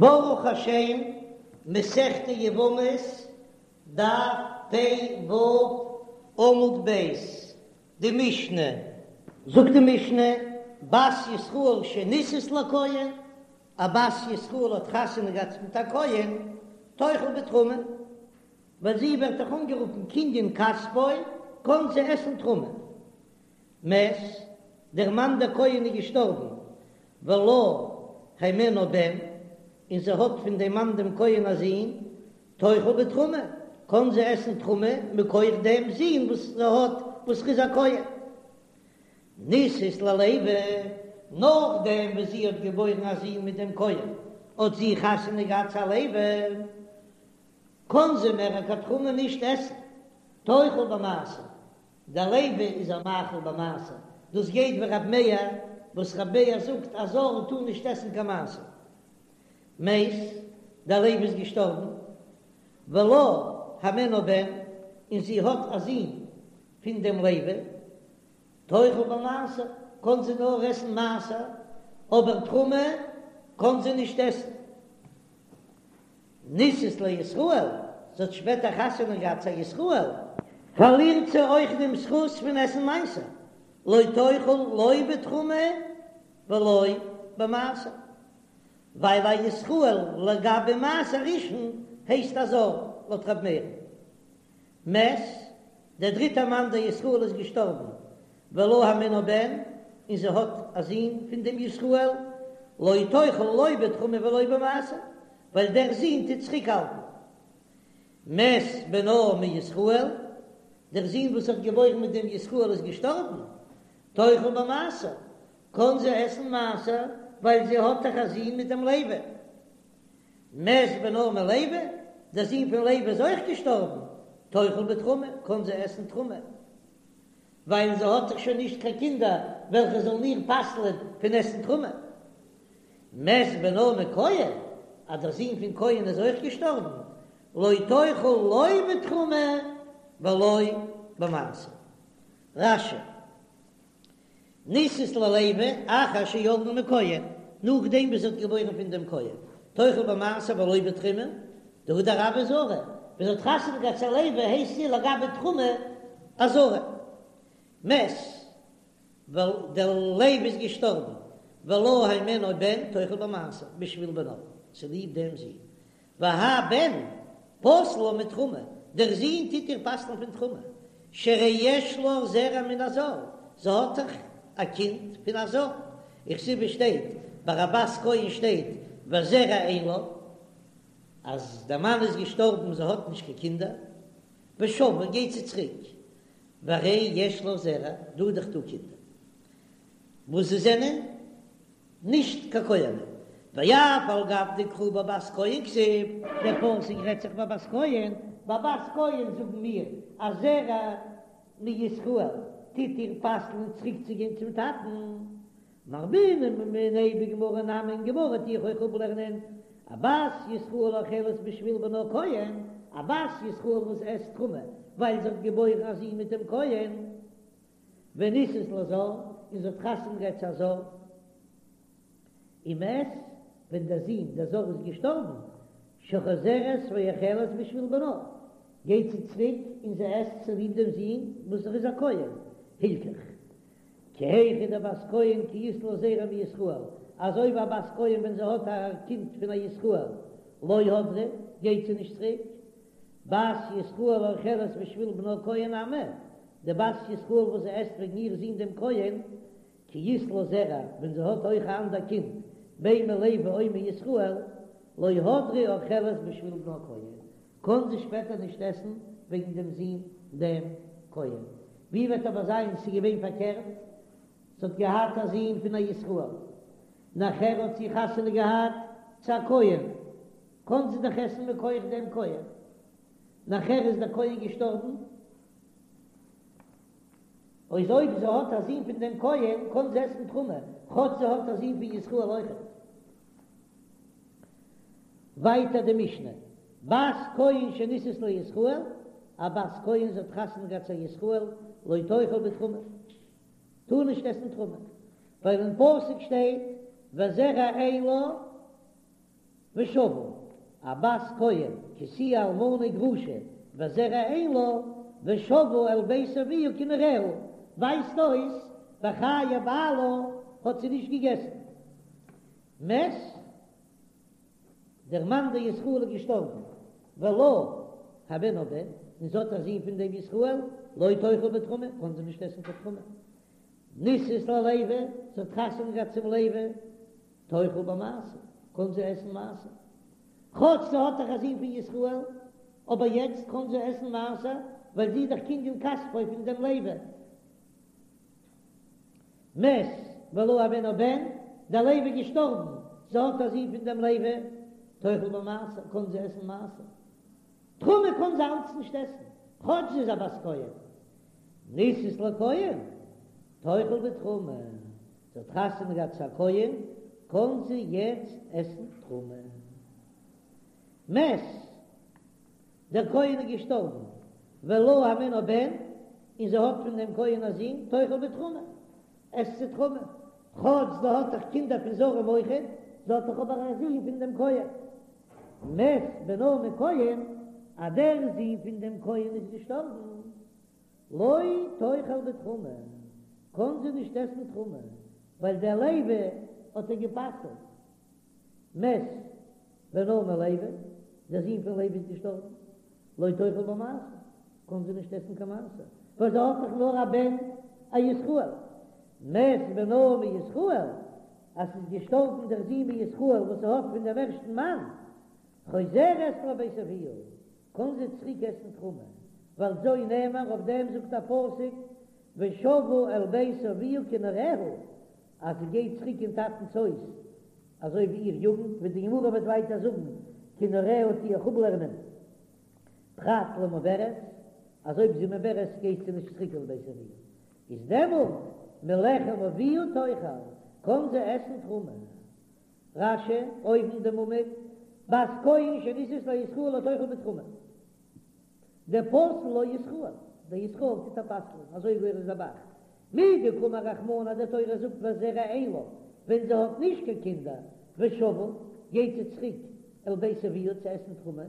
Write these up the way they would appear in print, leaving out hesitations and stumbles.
ברוך השם, מסכת יבמות, דף פ ו, עמוד ב', די משנה, זאגט די משנה, בת ישראל שנישאת לכהן, א בת ישראל האט חתונה געהאט מיט א כהן, תאכל בתרומה, ווייל זי ווערט דאך אנגערופן קנין כספו, קען זי עסן תרומה. מת, דער מאן דער כהן איז געשטארבן, ולה הימנו בן, און זי האט פון דעם מאן דעם כהן א זון, תאכל בתרומה, קען זי עסן תרומה מכח דעם זון וואס זי האט וואס ר'איז א כהן. נישאת ללוי, נאכדעם וואס זי האט געבוירן א זון מיט דעם כהן, האט זי חתונה געהאט צו א לוי, קען זי מער קיין תרומה נישט עסן, תאכל במעשר, דער לוי איז איר מאכיל במעשר, דאס גייט ווי רב מאיר, וואס רב מאיר זאגט א זר טאר נישט עסן קיין מעשר. מת, דער לוי איז געשטארבן, ולה הימנו בן, און זי האט א זון פון דעם לוי, תאכל במעשר, קען זי נאר עסן מעשר, אבער תרומה קען זי נישט עסן. נישאת לישראל, זי האט שפעטער חתונה געהאט צו א ישראל, פארלירט זי אויך דעם זכות פון עסן מעשר, לא תאכל לא בתרומה ולא במעשר, ווייל א ישראל לגבי מעשר ראשון הייסט א זר, לויט ר' מאיר'ן. מת, דער דריטער מאן דער ישראל איז געשטארבן, ולה הימנו בן, און זי האט א זון פון דעם ישראל, לא תאכל לא בתרומה ולא במעשר, ווייל דער זון טוט צוריקהאלטן. מת בנה מישראל, דער זון וואס האט געבוירן מיט דעם ישראל איז געשטארבן, תאכל במעשר, קען זי עסן מעשר, ווייל זי האט דאך א זון מיט דעם לוי. מת בנה מלוי, דער זון פון לוי איז אויך געשטארבן, תאכל בתרומה, קען זי עסן תרומה, ווייל זי האט דאך שוין נישט קיין קינדער וועלכע זאלן איר פסל'ען פון עסן תרומה. מת בנה מכהן, אז דער זון פון כהן איז אויך געשטארבן, לא תאכל לא בתרומה ולא במעשר. רש"י. נישאת ללוי אחר שילדה מכהן, נאכדעם וואס זי האט געבוירן פון דעם כהן, תאכל במעשר ולא בתרומה, דהדר הויא זרה, ווען זי האט חתונה געהאט צו א לוי הייסט זי לגבי תרומה א זרה. מת, ווייל דער לוי איז געשטארבן, ולה הימנו בן תאכל במעשר בשביל בנה, צוליב דעם זון, והאי בן פוסל לה מתרומה, דער זון טוט איר פסל'ן פון תרומה, שהרי יש לה זרע מן הזר, זי האט דאך א קינד פון א זר, וכתיב שטייט ביי א בת כהן שטייט וזרע אין לה, אז דער מאן איז געשטארבן זי האט נישט קיין קינדער, ושבה גייט זי צוריק, והרי יש לה זרע, דא איז דאך דא קינדער וואס זיי זענען נישט קיין כהנים, ואף על גב דקרא בבת כהן כתיב, דער פסוק רעדט זיך בבת כהן, ביי בת כהן זאגן מיר אז זרע מישראל טוט איר פסל'ן צוריק צו גיין צום טאטן, מרבינן מיניה בגמרא נמי אין גמרא טו איך אויך אפלערנען א בת ישראל האוכלת בשביל בנה כהן, א בת ישראל וואס עסט תרומה ווייל זי האט געבוירן א זון מיט דעם כהן. ונישאת לזר, און זי האט חתונה געהאט צו א זר, ומת, ווען דער זון דער זר איז געשטארבן, שחוזרת ואוכלת בשביל בנה, גייט זי צוריק און זי עסט צוליב דעם זון וואס ער איז א כהן, הילכך, כי היכי דבת כהן כי אית לה זרע מישראל, אזוי ווי א בת כהן ווען זי האט א קינד פון א ישראל, לא הדרה, גייט זי נישט צוריק, בת ישראל האוכלת בשביל בנה כהן נמי, די בת ישראל וואס זי עסט וועגן איר זון דעם כהן, כי אית לה זרע, ווען זי האט אויך א אנדער קינד, בין מלוי או מישראל, לא הדרה אוכלת בשביל בנה כהן, קען זי שפעטער נישט עסן וועגן דעם זון דעם כהן. ווי וועט אבער זיין ס'איז געווען פארקערט, זי האט געהאט א זון פון א ישראל, נאכער האט זי חתונה געהאט צו א כהן, קען זי דאך עסן מכח דעם כהן, נאכער איז דער כהן געשטארבן, אויז אויב זי האט א זון פון דעם כהן קען זי עסן תרומה, כאטש זי האט א זון פון ישראל אויכעט. ווייטער די משנה, בת כהן שנישאת לישראל, א בת כהן זי האט חתונה געהאט צו א ישראל, לא תאכל בתרומה, טאר נישט עסן תרומה, ווייל אין פסוק שטייט וזרע אין לה. ושבה, א בת כהן כי תהיה אלמנה וגרושה וזרע אין לה, ושבה אל בית אביה כנעוריה, ווייזט אויס בחיי בעלה האט זי נישט געגעסן. מת, דער מאן דער ישראל איז געשטארבן, ולה הימנה בן, און זי האט א זון פון דעם ישראל, לא תאכל בתרומה, קען זי נישט עסן קיין תרומה. נישאת ללוי, זי האט חתונה געהאט צום לוי, תאכל במעשר, קען זי עסן מעשר. כאטש זי האט דאך א זון פון ישראל, אבער יעצט קען זי עסן מעשר, ווייל זי איז דאך קנין כספו פון דעם לוי. מת ולה הימנה בן, דער לוי איז געשטארבן, זי האט א זון פון דעם לוי, תאכל במעשר, קען זי עסן מעשר. תרומה קען זי אלץ נישט עסן, כאטש זי איז א בת כהן. נישאת לכהן, תאכל בתרומה, זי האט חתונה געהאט צו א כהן, קען זי יעצט עסן תרומה. מת, דער כהן איז געשטארבן, ולה הימנה בן, און זי האט פון דעם כהן א זון, תאכל בתרומה, עסט זי תרומה, כאטש זי האט דאך קינדער פון זרים אויכעט, זי האט דאך אבער א זון פון דעם כהן. מת בנה מכהן, אז דער זון פון דעם כהן איז געשטארבן, לא תאכל בתרומה, קען זי נישט עסן תרומה, ווייל דער לוי האט איר גע'פסל'ט. מת בנה מלוי, דער זון פון לוי איז געשטארבן, לא תאכל במעשר, קען זי נישט עסן קיין מעשר, ווייל זי האט דאך נאר א בן א ישראל. מת בנה מישראל, אז ס'איז געשטארבן דער זון מישראל וואס זי האט פון דעם ערשטן מאן, חוזרת לבית אביה, קען זי צוריק עסן תרומה, ועל זו נאמר, אויף דעם זאגט א פסוק, ושבה אל בית אביה כנעוריה, אז זי גייט צוריק אין טאטנ'ס הויז אזוי ווי איר יוגנט, ווי די גמרא וועט ווייטער זאגן, כנעוריה טו איך אפלערנען פרט למעוברת, אז אויב זי מעוברת גייט זי נישט צוריק אל בית אביה, איז דעמאלט מלחם אביה תאכל, קען זי עסן תרומה. רש"י, אויבן דעם עמוד, בת כהן שנישאת לישראל לא תאכל בתרומה. דפסל לה ישראל, דער ישראל טוט איר פסל'ען, אזוי גורס דער ב"ח. מדקאמר רחמנא די תורה זאגט וזרע אין לה, ווען זי האט נישט קיין קינדער, ושבה, גייט זי צוריק אל בית אביה צו עסן תרומה,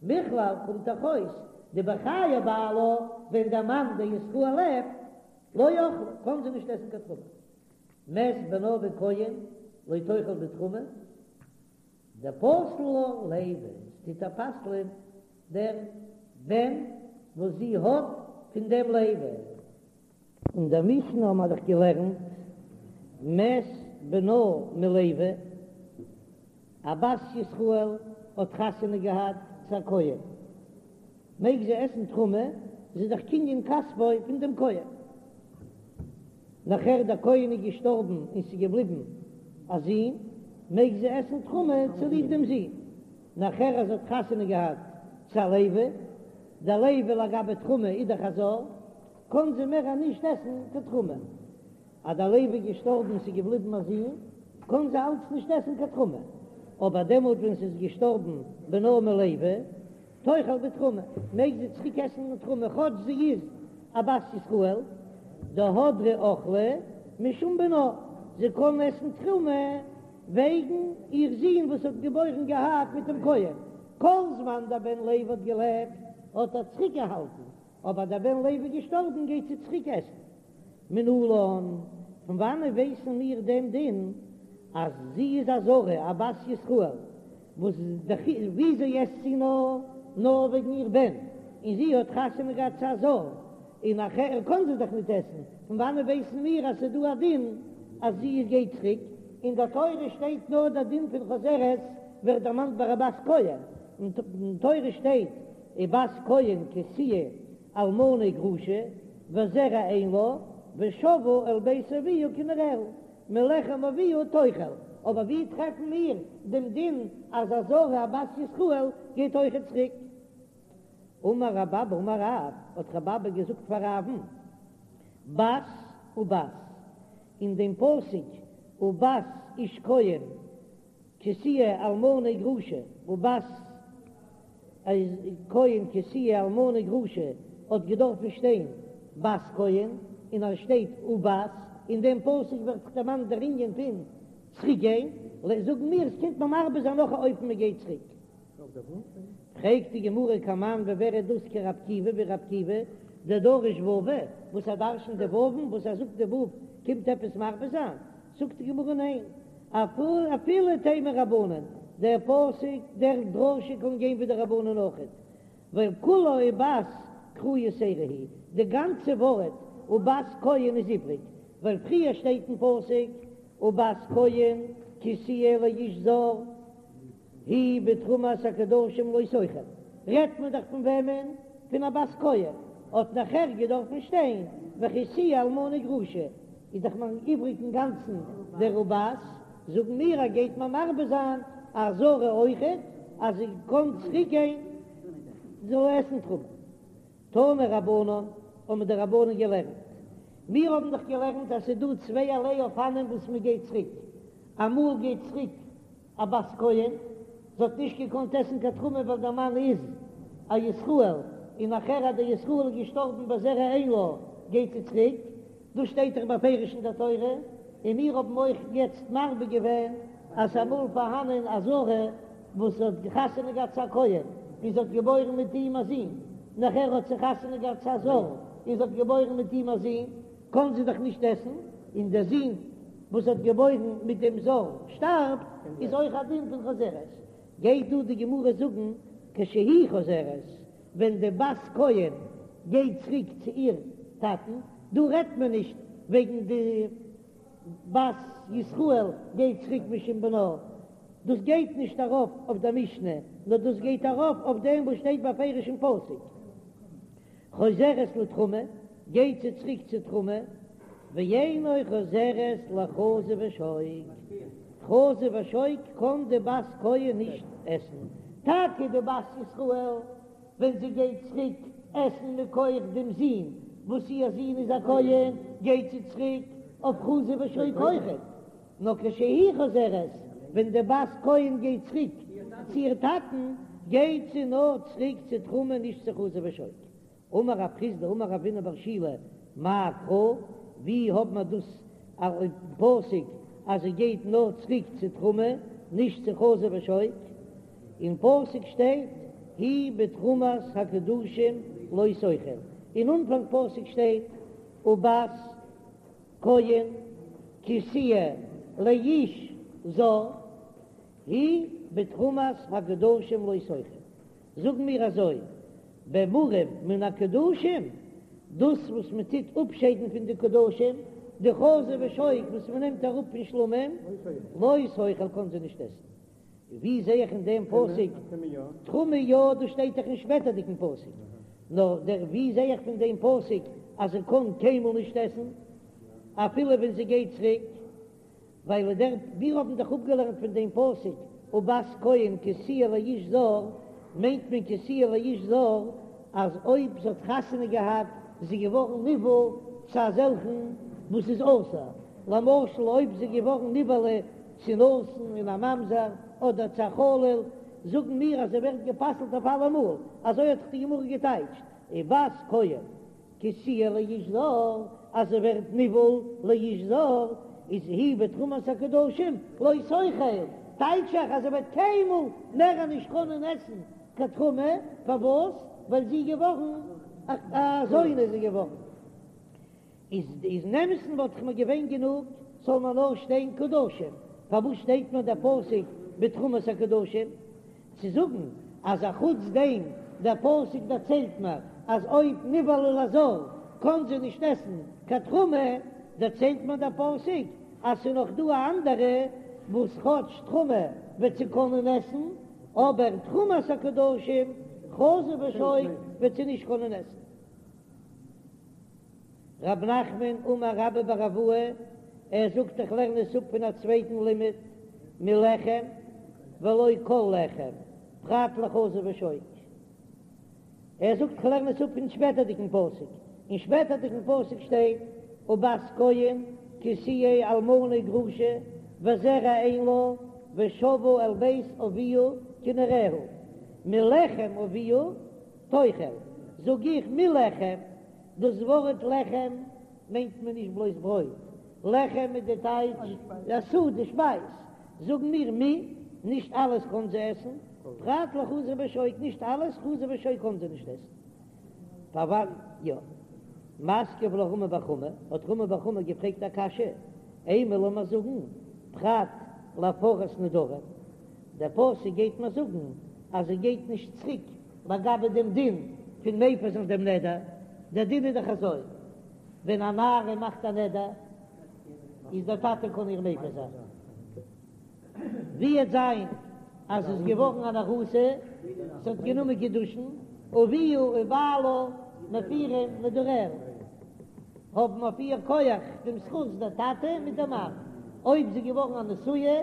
מכלל קומט דאך אויס דבחיי בעלה ווען דער מאן דער ישראל לעבט, לא אכלה, קען זי נישט עסן קיין תרומה. מת בנה מכהן לא תאכל בתרומה, דפסל לה לוי, עס טוט איר פסל'ען דער בן וואס זי האט פון דעם לוי. אין דער משנה האבן מיר דאך געלערנט מת בנה מלוי, א בת ישראל האט חתונה געהאט צו א כהן, מעג זי עסן תרומה, זי איז דאך קנין כספו פון דעם כהן. נאכער דער כהן איז געשטארבן און ס'איז געבליבן א זון, מעג זי עסן תרומה צוליב דעם זון. נאכער אז זי האט חתונה געהאט צו א לוי, דער לוי לגבי תרומה איז דאך א זר, קען זי מער נישט עסן קיין תרומה. אז דער לוי איז געשטארבן און ס'איז געבליבן א זון, קען זי אלץ נישט עסן קיין תרומה. אבער דעמאלט ווען ס'איז געשטארבן בנה מלוי, תאכל בתרומה, מעג זי צוריק עסן תרומה כאטש זי איז א בת ישראל, דהדרא אכלה משום בנה, זי קען עסן תרומה וועגן איר זון וואס האט געבוירן געהאט מיט דעם כהן, כל זמן דער בן לוי האט געלעבט האט ער צוריק געהאלטן, אבער דער בן לוי איז געשטארבן גייט זי צוריק עסן. מנלן, פון וואנען ווייסן מיר דעם דין אז זי איז א זרה, א בת ישראל, וואס וויאזוי עסט זי נאר, נאר וועגן איר בן, און זי האט חתונה געהאט צו א זר, און נאכער קען זי דאך ניט עסן, פון וואנען ווייסן מיר אז ס'איז דא א דין אז זי גייט צוריק? אין דער תורה שטייט נאר דער דין פון חוזרת ווערט דערמאנט ביי א בת כהן, אין תורה שטייט ובת כהן כי תהיה אלמנה וגרושה וזרע אין לה ושבה אל בית אביה כנעוריה מלחם אביה תאכל, אבער ווי טרעפן מיר דעם דין אז א זרה א בת ישראל גייט אויכעט צוריק? אמר רב אבא אמר רב, האט רב אבא געזאגט פאר רב'ן, בת ובת, אין דעם פסוק ובת איש כהן כי תהיה אלמנה וגרושה ובת כהן כי תהיה אלמנה וגרושה האט געדארפן שטיין בת כהן און עס שטייט ובת, אין דעם פסוק ווערט דאך דערמאנט דער ענין פון צוריק גיין. זאגן מיר עס קומט מיר מרבה זיין נאך א אופן מען גייט צוריק. פרעגט די גמרא כמאן ווי ווער איז דאס כרבי עקיבא ווי רבי עקיבא דדריש וואוי וואס ער דרשנט די וואוון וואס ער זאגט די וואו קומט עפעס מרבה זיין זאגט די גמרא ניין אפילו תימא רבנן דער פסוק דער דרשה קען גיין ווי די רבנן אויכעט ווייל כולה ובת קרא יתירא היא די גאנצע ווארט ובת כהן איז איבריג ווייל פריער שטייט אין פסוק ובת כהן כי תהיה לאיש זר היא בתרומת הקדשים לא תאכל, רעדט מען דאך פון וועמען? פון א בת כהן, האט נאכער געדארפן שטיין וכי תהיה אלמנה וגרושה, איז דאך מיר איבריג אינגאנצן דער ובת, זאגן מיר אז גייט מען מרבה זיין א זרה אויכעט אז זי קען צוריק גיין זאל עסן תרומה. תנו רבנן, האבן די רבנן געלערנט, מיר האבן דאך געלערנט אז ס'איז דא צווייערליי אופנים וואס מען גייט צוריק, אמאל גייט צוריק א בת כהן, זי האט נישט געקאנט עסן קיין תרומה ווייל דער מאן איז א ישראל, און נאכער אז דער ישראל איז געשטארבן וזרע אין לה, גייט זי צוריק, דאס שטייט דאך בפירוש אין דער תורה, און מיר האבן אויך יעצט מרבה געווען אז ס'איז אמאל פארהאנען א זרה וואס האט חתונה געהאט צו א כהן און זי האט געבוירן מיט אים א זון, נאכער האט זי חתונה געהאט צו א זר און זי האט געבוירן מיט אים א זון, קאָן זי דאָך נישט עסן, און דער זון, וואָס האָט געבוירן מיט דעם זר, שטאַרבט, איז אויך אַ דין פון חוזרת. גייט דאָ די גמרא זאָגן, כשהיא חוזרת, ווען די בת כהן גייט צוריק צו איר טאַטן, דאָ רעדט מען נישט וועגן די בת ישראל גייט צוריק משום בנה, דאָס גייט נישט אַרויף אויף דער משנה, נאָר דאָס גייט אַרויף אויף דעם וואָס שטייט בפירוש אין פסוק. חוזרת לתרומה, גייט זי צוריק צו תרומה, ואינה חוזרת לחזה ושוק, חזה ושוק קען די בת כהן נישט עסן, טאקע די בת ישראל ווען זי גייט צוריק עסן מכח דעם זון וואס איר זון איז א כהן, גייט זי צוריק אויף חזה ושוק אויכעט, נאר כשהיא חוזרת, ווען די בת כהן גייט צוריק צו איר טאטן, גייט זי נאר צוריק צו תרומה נישט צו חזה ושוק. אמר רב חסדא אמר רב הונא בר שילא מאי קרא, ווי האט מען דאס אין פסוק אז זי גייט נאר צוריק צו תרומה נישט צו חזה ושוק? אין פסוק שטייט היא בתרומת הקדשים לא תאכל, אין אנפאנג פסוק שטייט ובת כהן כי תהיה לאיש זר היא בתרומת הקדשים לא תאכל, זאגן מיר אזוי, במורם מן הקדשים, דאס וואס מען טוט אפשיידן פון די קדשים, די חזה ושוק וואס מען נעמט אראפ פון שלמים, לא תאכל קען זי נישט עסן. ווי זע איך אין דעם פסוק תרומה יא? דאס שטייט דאך אין שפעטערדיגן פסוק. נאר דער ווי זע איך פון דעם פסוק אז זי קען קיינמאל נישט עסן אפילו ווען זי גייט צוריק? ווייל דער מיר האבן דאך אפגעלערנט פון דעם פסוק ובת כהן כי תהיה לאיש זר, מיינט מען כי תהיה לאיש זר אז אויב זי האט חתונה געהאט איז זי געווארן נבעל צו אזעלכן וואס איז אסור, למשל אויב זי איז געווארן נבעלה צו נתין און א ממזר אדער צו א חלל, זאגן מיר אז זי ווערט גע'פסל'ט אויף אלעמאל, אזוי האט דאך די גמרא געטייטשט, ובת כהן כי תהיה לאיש זר, אז זי ווערט נבעל לאיש זר, איז היא בתרומת הקדשים לא תאכל, טייטש איך אז זי וועט קיינמאל מער נישט קענען עסן קיין תרומה, פארוואס? ווייל זי איז געווארן א זונה איז זי געווארן. איז אין אמת'ן וואלט איך מיר געווען גענוג זאל מען נאר שטיין קדשים, פארוואס שטייט מיר דער פסוק בתרומת הקדשים? צו זאגן אז א חוץ דעם דער פסוק דערציילט מיר אז אויב נבעלה לזר קען זי נישט עסן קיין תרומה, דערציילט מיר דער פסוק אז ס'איז נאך דא א אנדערע וואס כאטש תרומה וועט זי קענען עסן, אבער תרומת הקדשים חזה ושוק וועט זי נישט קענען עסן. רב נחמן אמר רבה בר אבוה, ער זאגט איך לערן עס אפ פון א צווייטן לימוד, מלחם ולא כל לחם, פרט לחזה ושוק. ער זאגט איך לערן עס אפ פון שפעטערדיגן פסוק, אין שפעטערדיגן פסוק שטייט ובת כהן כי תהיה אלמנה וגרושה וזרע אין לה ושבה אל בית אביה כנעוריה, מלחם אביה תאכל, זאג איך מלחם, דאס ווארט לחם מיינט מען נישט בלויז ברויט, לחם איז די טייטש א סעודה, שפייז. זאגן מיר מי, נישט אלעס קען זי עסן, פרט לחזה ושוק, נישט אלעס, חזה ושוק קען זי נישט עסן. פארוואס יא? מתקיף לה רמי בר חמא, האט רמי בר חמא געפרעגט א קשיא, אימא לאמיר זאגן פרט להפרת נדרים, דער פסוק גייט מיר זאגן אז זי גייט נישט צוריק לגבי דעם דין פון מפר זיין דעם נדר, דער דין איז דאך אזוי, ווען א נערה מאכט א נדר איז דער טאטע קען איר מפר זיין. ווי וועט זיין אז זי איז געווארן אן ארוסה, זי האט גענומען קידושין, אביה ובעלה מפירים נדריה, האבן אויף איר כח דעם זכות דער טאטע מיט דער מאן, אויב זי איז געווארן א נשואה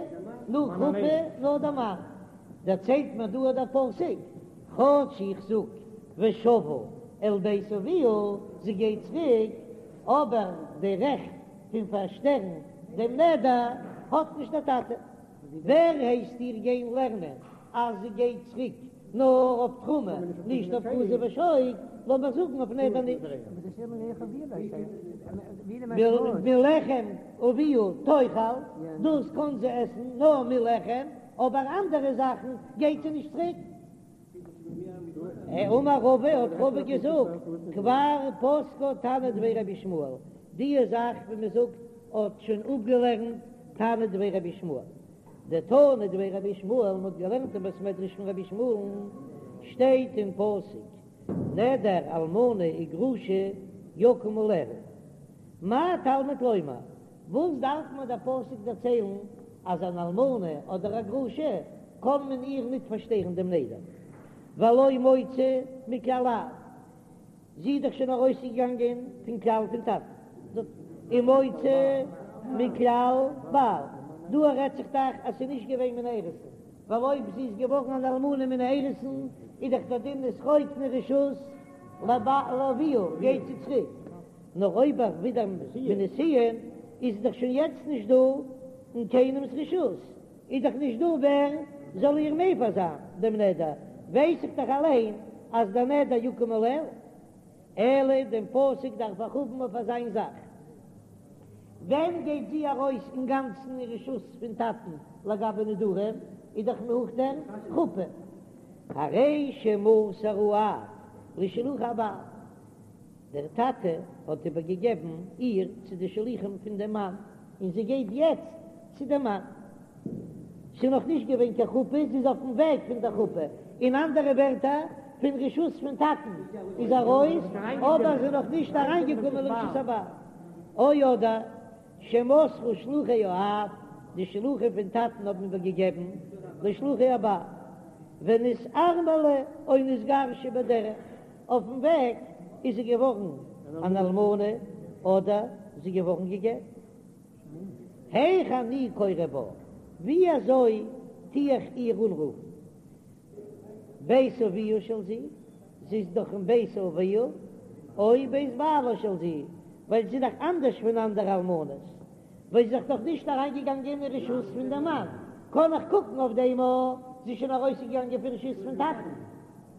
נאך חופה נאר דער מאן, דערציילט מיר דא דער פסוק, כאטש איך זאג ושבה אל בית אביה, זי גייט צוריק, אבער די רעכט פון פארשטערן דעם נדר האט נישט דער טאטע. ווער הייסט איר גיין לערנען אז זי גייט צוריק נאר אויף תרומה נישט אויף חזה ושוק, לאמיר זאגן אויף נדר נישט. מלחם אביה תאכל, דאס קען זי עסן נאר מלחם, אבער אנדערע זאכן גייט זי נישט צוריק. אמר רבא, האט רבא געזאגט, כבר פסקה תנא דבי רבי ישמעאל, די זאך ווי מען זאגט האט שוין אפגעלערנט תנא דבי רבי ישמעאל, דתנא דבי רבי ישמעאל, מען האט געלערנט אין בית מדרש פון רבי ישמעאל'ן, שטייט אין פסוק, נדר אלמנה וגרושה יקום עליה, מה תלמוד לומר, וואס דארף מיר דער פסוק דערציילן אז אן אלמנה אדער א גרושה קען מען איר ניט פארשטערן דעם נדר, והלא מוצאה מכלל אב, זי איז דאך שוין ארויסגעגאנגען פון כלל פון טאטן, ומוצאה מכלל בעל, דא רעדט זיך דאך אז ס'איז נישט געווען מן האירוסין, ווייל אויב זי איז געווארן אן אלמנה מן האירוסין איז דאך דער דין איז חוק רשות לאביה גייט זי צוריק. נאר אויב אויך ווידער מנישואין איז דאך שוין יעצט נישט דא אין קיינעמס רשות, איז דאך נישט דא ווער זאל איר מפר זיין דעם נדר, ווייס איך דאך אליין אז דער נדר יקום עליה, אלא דעם פסוק דארף איך האבן אויף אזיין זאך. ווען גייט זי ארויס אינגאנצן אין רשות פון טאטן לגבי נדרים, איז דאך נאך דער חופה, הרי שמסר האב לשלוחי הבעל. דער טאטע האט איבערגעגעבן איר צו די שליחים פון דעם מאן, און זי גייט יעצט צו דעם מאן. ס'איז נאך נישט געווען קיין חופה, זי איז אויפן וועג פון דער חופה. אין אנדערע ווערטער, פון רשות פון טאטן איז ארויס, אבער זי איז נאך נישט אריינגעקומען לרשות הבעל. או אדער שמסרו שלוחי האב, די שלוחים פון טאטן האבן איבערגעגעבן לשלוחי הבעל, ונתארמלה או נתגרשה בדרך. אויפן וועג איז זי געווארן אן אלמנה אדער זי געווארן גע'גט. היאך אני קורא בה, ווי אזוי טו איך איר אנרופן? בית אביה של זו, זי איז דאך אין בית אביה, או בית בעלה של זו, ווייל זי איז דאך אנדערש פון אנדערע אלמנות, ווייל זי איז דאך נישט אריינגעגאנגען אין רשות פון דעם מאן, קען איך קוקן אויף דעם אז זי איז שוין ארויסגעגאנגען פון רשות פון טאטן,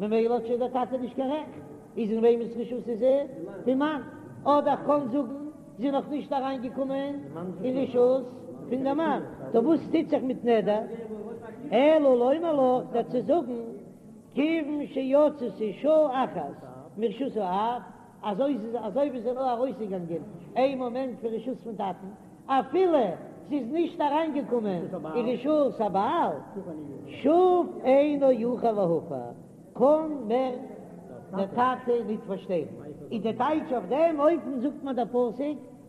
ממילא האט שוין דער טאטע נישט קיין רעכט, איז אין וועמענס רשות איז זי? פון מאן. אדער איך קען זאגן זי איז נאך נישט אריינגעקומען אין רשות פון דעם מאן, טא וואס טוט זיך מיט נדר? אלא לומר לך, דיר צו זאגן, כיוון שיצתה שעה אחת מרשות האב, אזוי אזוי ווי זי איז נאר ארויסגעגאנגען איין מאמענט פון רשות פון טאטן, אפילו זי איז נישט אריינגעקומען אין רשות הבעל, שוב אינו יכול להפר, קען מער דער טאטע ניט פארשטערן. איז די טייטש אויף דעם אופן זאגט מיר דער פסוק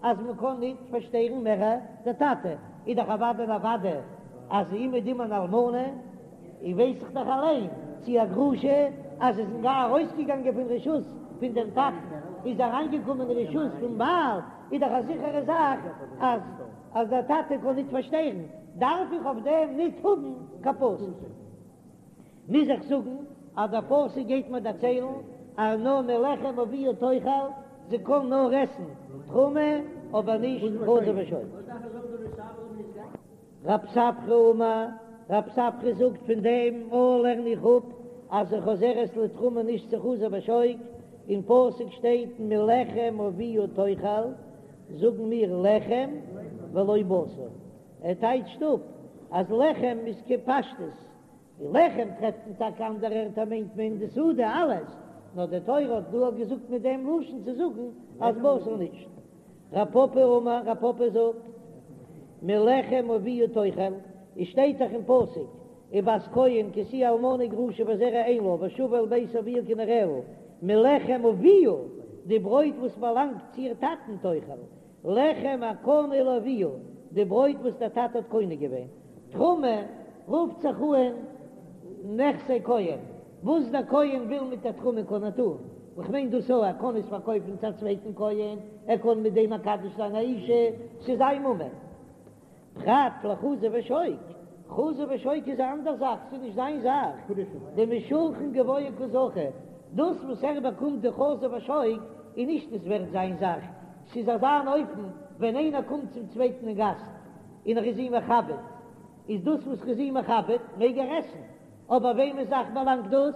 אז מען קען ניט פארשטערן מער דער טאטע, איז דאך אוודאי און אוודאי אז אומעדום אן אלמנה, און ווייס איך דאך אליין צי א גרושה אז איז גאר ארויסגעגאנגען פון רשות פון דעם טאטן איז אריינגעקומען אין רשות פון בעל, איז דאך א זיכערע זאך אז אז דער טאטע קען ניט פארשטערן, דארף איך אויף דעם ניט האבן קיין פסוק. מוז איך זאגן אז דער פסוק גייט מיר דערציילן אז נאר מלחם אביה תאכל, זי קען נאר עסן תרומה אבער נישט חזה ושוק. רב ספרא אמר, רב ספרא זאגט פון דעם א לערן איך אפ אז זי חוזרת לתרומה נישט צו חזה ושוק, אין פסוק שטייט מלחם אביה תאכל, זאגן מיר לחם ולא בשר, ער טייטשט אפ. אז לחם איז כפשטות, די לחם טרעפט מען טאקע אנדערע ערטער מיינט מען די סעודה אלעס, נאר די תורה האט דא געזאגט מיט דעם לשון צו זאגן אז בשר נישט. רב פפא אמר, רב פפא זאגט, מלחם אביה תאכל, עס שטייט דאך אין פסוק, ובת כהן כי תהיה אלמנה וגרושה וזרע אין לה ושבה אל בית אביה כנעוריה, מלחם אביה, די ברויט וואס באלאנגט צו איר טאטן תאכל, לחם הקנוי לאביה, די ברויט וואס דער טאטע האט קונה געווען. תרומה רופט זיך אן נכסי כהן, וואס דער כהן וויל מיט דער תרומה קען ער טון, איך מיין דאס אויך, ער קען עס פארקויפן צו א צווייטן כהן, ער קען מיט דעם מקדש זיין א אישה, ס'איז זיין ממון. פרט לחזה ושוק, חזה ושוק איז א אנדער זאך, ס'איז נישט זיין זאך, דמשולחן גבוה קא זכו, דאס וואס ער באקומט די חזה ושוק איז נישט עס ווערט זיין זאך, ס'איז אזא אן אופן ווען איינער קומט צום צווייטן אין גאסט און ער איז אים מכבד, איז דאס וואס ער איז אים מכבד מעג ער עסן, אבער וועמענס זאך באלאנגט דאס?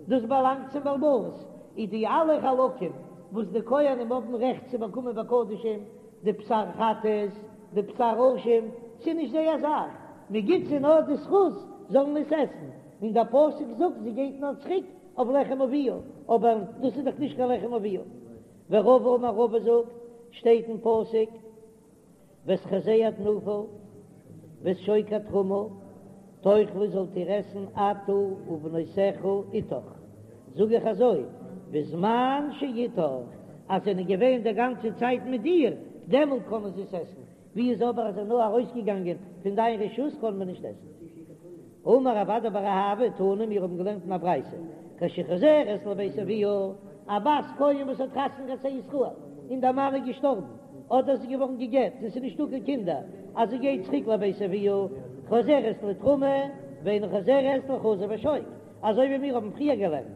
דאס באלאנגט צום בעל הבית, איז די אלע חלקים וואס די כהנים האבן רעכט צו באקומען בקדשים, די בשר חטאת, די בשר אשם, ס'איז נישט זייער זאך, מען גיט זיי נאר די זכות זאלן עס עסן, און דער פסוק זאגט זי גייט נאר צוריק אויף לחם אביה, אבער דאס איז דאך נישט קיין לחם אביה. ורבא אמר רבא זאגט, שטייט אין פסוק, ואת חזה התנופה ואת שוק התרומה תאכלו זאלט איר עסן אתה ובנותיך אתך, זאג איך אזוי, בזמן שאתך, אז זענען געווען די גאנצע צייט מיט דיר, דעמאלט קענען זיי עס עסן, ווי איז אבער אז זיי נאר ארויסגעגאנגען פון דיין רשות קען מען נישט עסן. אמר רב אדא בר אהבה תנא מיר האבן געלערנט אין א ברייתא כשחוזרת לבית אביה, א בת כהן וואס האט חתונה געהאט צו א ישראל און דער מאן איז געשטארבן אדער זי איז געווארן גע'גט און ס'איז נישטא קיין קינדער אז זי גייט צוריק לבית אביה חוזרת לתרומה ואינה חוזרת לחזה ושוק אזוי ווי מיר האבן פריער געלערנט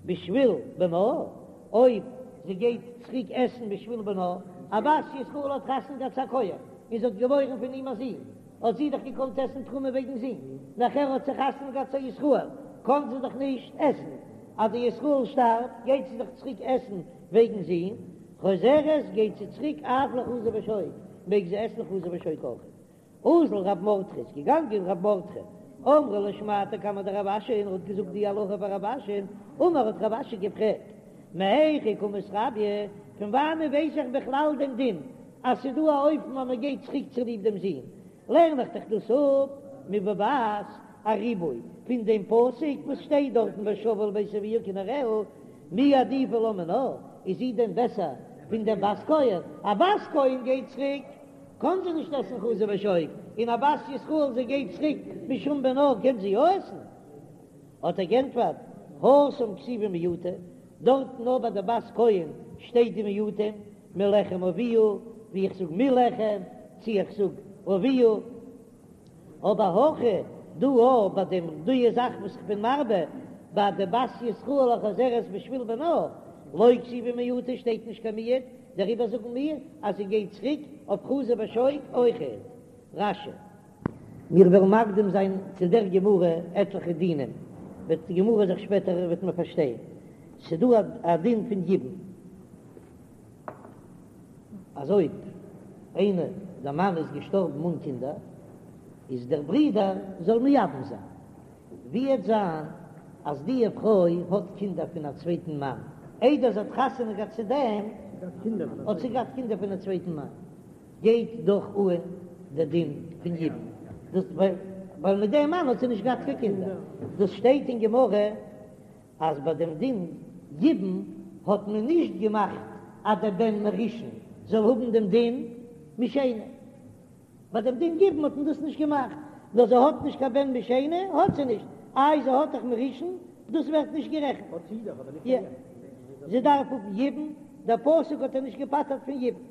בשביל בנה אויב זי גייט צוריק עסן בשביל בנה, א בת ישראל האט חתונה געהאט צו א כהן און זי האט געבוירן פון אים א זון, האט זי דאך געקאנט עסן תרומה וועגן זון, נאכער האט זי חתונה געהאט צו א ישראל, קאן זי דאך נישט עסן, אז די ישראל שטארבט גייט זי דאך צוריק עסן וועגן זון, חוזרת גייט זי צוריק אף לחזה ושוק, מעג זי עסן חזה ושוק אויך. אזל רב מרדכי איז געגאנגען רב מרדכי, אמרה לשמעתיה קמיה דרב אשי און ער האט געזאגט די הלכה פאר רב אשי, אמר האט רב אשי געפרעגט, מהיכא קא מתרביא, פון וואנען ווייס איך בכלל דעם דין אז ס'איז דא א אופן אז מ'גייט צוריק צוליב דעם זון, לערן איך דאך דאס אפ מבבת א ריבוי פון דעם פסוק וואס שטייט דארטן ושבה אל בית אביה כנעוריה, מי עדיפא לה מינה, איז זי דען בעסער פון דעם בת כהן? א בת כהן גייט צוריק קאן זי נישט עסן חזה ושוק, און א בת ישראל זי גייט צוריק משום בנה קען זי יא עסן? האט ער גענטפערט, התם כתיבי מיעוטי, דארטן נאר ביי די בת כהן שטייט די מיעוטים, מלחם אביה, ווי איך זאג מלחם, צי איך זאג אביה, אבער הכא דא אויך ביי דעם די זאך וואס איך בין מרבה ביי די בת ישראל החוזרת בשביל בנה, לא כתיבי מיעוטי שטייט נישט קיין מיעוט, דעריבער זאגן מיר אז זי גייט צוריק אויף חזה ושוק אויכעט. רש"י. מיר וועלן מקדים זיין צו דער גמרא עטליכע דינים, וועט די גמרא זיך שפעטער וועט מען פארשטיין, ס'דא א דין פון יבום, אז אויב איינער דער מאן איז געשטארבן אן קינדער, איז דער ברודער זאל מייבם זיין. ווי וועט זיין אז די פרוי האט קינדער פון א צווייטן מאן, איידער זי האט חתונה געהאט צו דעם האט זי געהאט קינדער פון א צווייטן מאן, גייט דאך אן דער דין פון יבום, דאס ווייל מיט דעם מאן האט זי נישט געהאט קיין קינדער, דאס שטייט אין גמרא אז ביי דעם דין יבום האט מען נישט געמאכט אז דער בן מראשון זאל האבן דעם דין משני. ביי דעם דין יבום האט מען דאס נישט געמאכט, נאר זי האט נישט קיין בן משני האט זי נישט, איי זי האט דאך מראשון, דאס ווערט נישט גערעכנט. האט זי דאך אבער נישט יא, קיין יבום. זי דארף האבן יבום, דער פסוק האט איר נישט געפטר'ט פון יבום.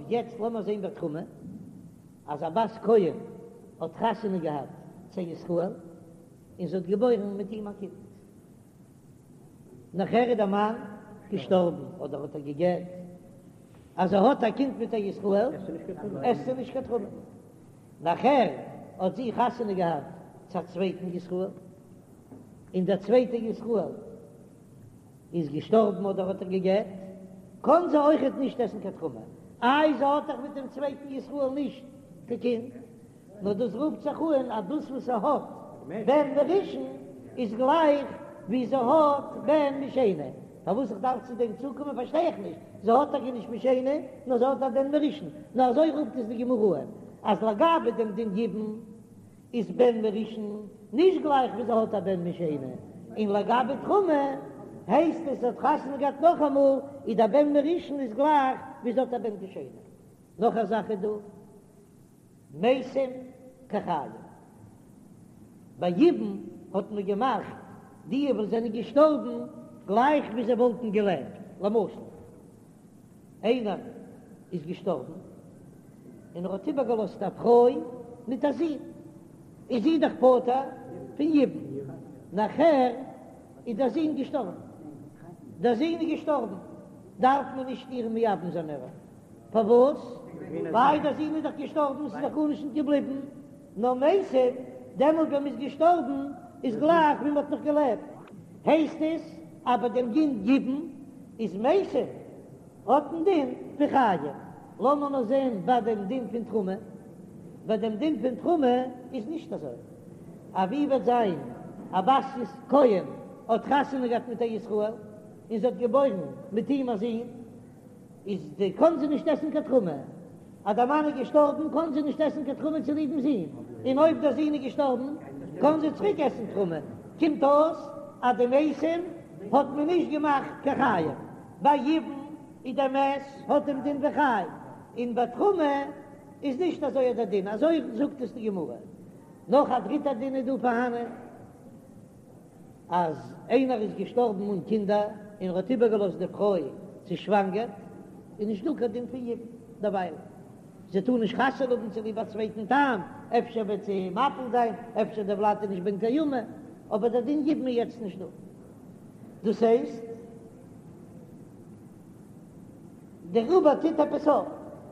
יעצט לאמיר זען ביי תרומה, אז א בת כהן האט חתונה געהאט צו ישראל, און זי האט געבוירן מיט אים א קינד. נאכער איז דער מאן געשטארבן אדער האט ער גע'גט, אז זי האט א קינד מיט א ישראל עסט זי נישט קיין תרומה. נאכער האט זי חתונה געהאט צו א צווייטן ישראל, און דער צווייטער ישראל איז געשטארבן אדער האט ער גע'גט, קען זי אויכעט נישט עסן קיין תרומה, איי זי האט דאך מיט דעם צווייטן ישראל נישט קיין קינד. נאר דאס רופט זיך אן אז דאס וואס זי האט בן מראשון איז גלייך ווי זי האט בן משני. פארוואס איך דארף צו דעם צוקומען פארשטיי איך נישט, זי האט טאקע נישט משני, נאר זי האט א בן מראשון, נאר אזוי רופט עס די גמרא אן, אז לגבי דעם דין יבום איז בן מראשון נישט גלייך ווי זי האט א בן משני, און לגבי תרומה הייסט עס זי האט חתונה געהאט נאכאמאל, איז דער בן מראשון איז גלייך ווי זי האט א בן משני. נאך א זאך איז דא. מתים כחיים. ביי יבום האט מען געמאכט די וואס זענען געשטארבן גלייך ווי זיי וואלטן געלעבט, למשל איינער איז געשטארבן און ער האט איבערגעלאזט א פרוי מיט א זון, איז זי דאך פטור פון יבום, נאכער איז דער זון געשטארבן, דער זון איז געשטארבן דארף מען נישט איר מייבם זיין מער. פארוואס? ווייל דער זון איז דאך געשטארבן, ס'איז דאך גארנישט נישט געבליבן, נאר מתים, דעמאלט ווען מ'איז געשטארבן איז גלייך ווי מ'האט נאך געלעבט. הייסט עס אז ביי דעם דין יבום איז מתים האט דעם דין פון חיים. לאמיר נאר זען ביי דעם דין פון תרומה. ביי דעם דין פון תרומה איז נישט אזוי. א ווי וועט זיין א בת כהן האט חתונה געהאט מיט א ישראל און זי האט געבוירן מיט אים א זון, איז די קאן זי נישט עסן קיין תרומה, אז דער מאן איז געשטארבן קאן זי נישט עסן קיין תרומה צוליבן זון, און אויב דער זון איז געשטארבן קאן זי צוריק עסן תרומה, קומט אויס אז די מתים האט מען נישט געמאכט קיין חיים, ביי יבום איז דער מת האט דעם דין ווי חי, און ביי תרומה איז נישט אזוי דער דין, אזוי זאגט עס די גמרא. נאך א דריטע דין איז דא פארהאנען. אז איינער איז געשטארבן אן קינדער און ער האט איבערגעלאזט די פרוי צעשוואנגערט, איז נישט דא קיין דין פון יבום דערווייל, זי טאר נישט חתונה האבן צוליב א צווייטן טעם, אפשר וועט זי מפיל זיין, אפשר דער ולד איז נישט בן קיימא, אבער דער דין יבום איז יעצט נישט דא. דאס הייסט. דער עובר טוט עפעס אויף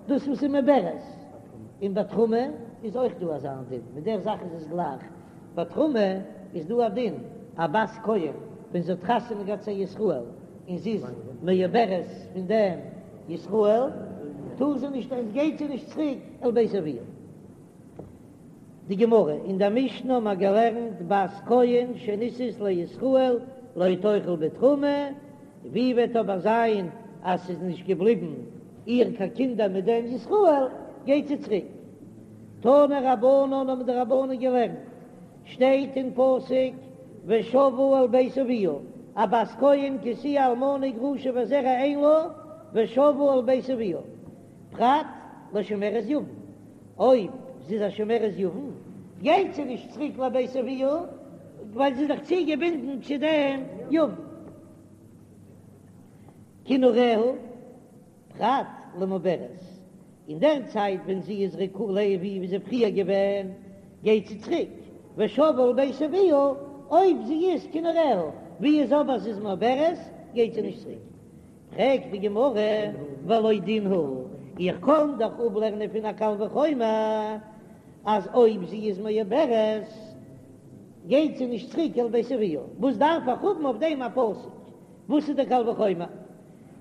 דאס וואס איז מעוברת, און ביי תרומה איז אויך דא אזא דין, מיט דער זאך איז עס גלייך, ביי תרומה איז דא א דין, א בת כהן ווען זי האט חתונה געהאט צו א ישראל און זי איז מעוברת פון דעם ישראל, טאר זי נישט, עס גייט זי נישט צוריק אל בית אביה. די גמרא, אין דער משנה האבן מיר געלערנט בת כהן שנישאת לישראל לא תאכל בתרומה, ווי וועט אבער זיין אז ס'איז נישט געבליבן איר קיין קינדער מיט דעם ישראל, גייט זי צוריק. תנו רבנן האבן די רבנן געלערנט, שטייט אין פסוק ושבה אל בית אביה, א בת כהן כי תהיה אלמנה וגרושה וזרע אין לה, ושבה אל בית אביה, פרט לשומרת יבם, אויב זי איז א שומרת יבם גייט זי נישט צוריק לבית אביה, ווייל זי איז דאך צוגעבינדן צו דעם יבם. כנעוריה, פרט למעוברת, אין דער צייט ווען זי איז ריקה לאבי ווי זי פריער געווען, גייט זי צוריק, ושבה אל בית אביה, אויב זי איז כנעוריה, ווי איז אבער זי איז מעוברת, גייט זי נישט צוריק. פרעגט די גמרא, והלא דין הוא, איך קען דאך אפלערנען פון א קל וחומר אז אויב זי איז מעוברת גייט זי נישט צוריק אל בית אביה, וואס דארף איך האבן אויף דעם א פסוק? וואס איז די קל וחומר?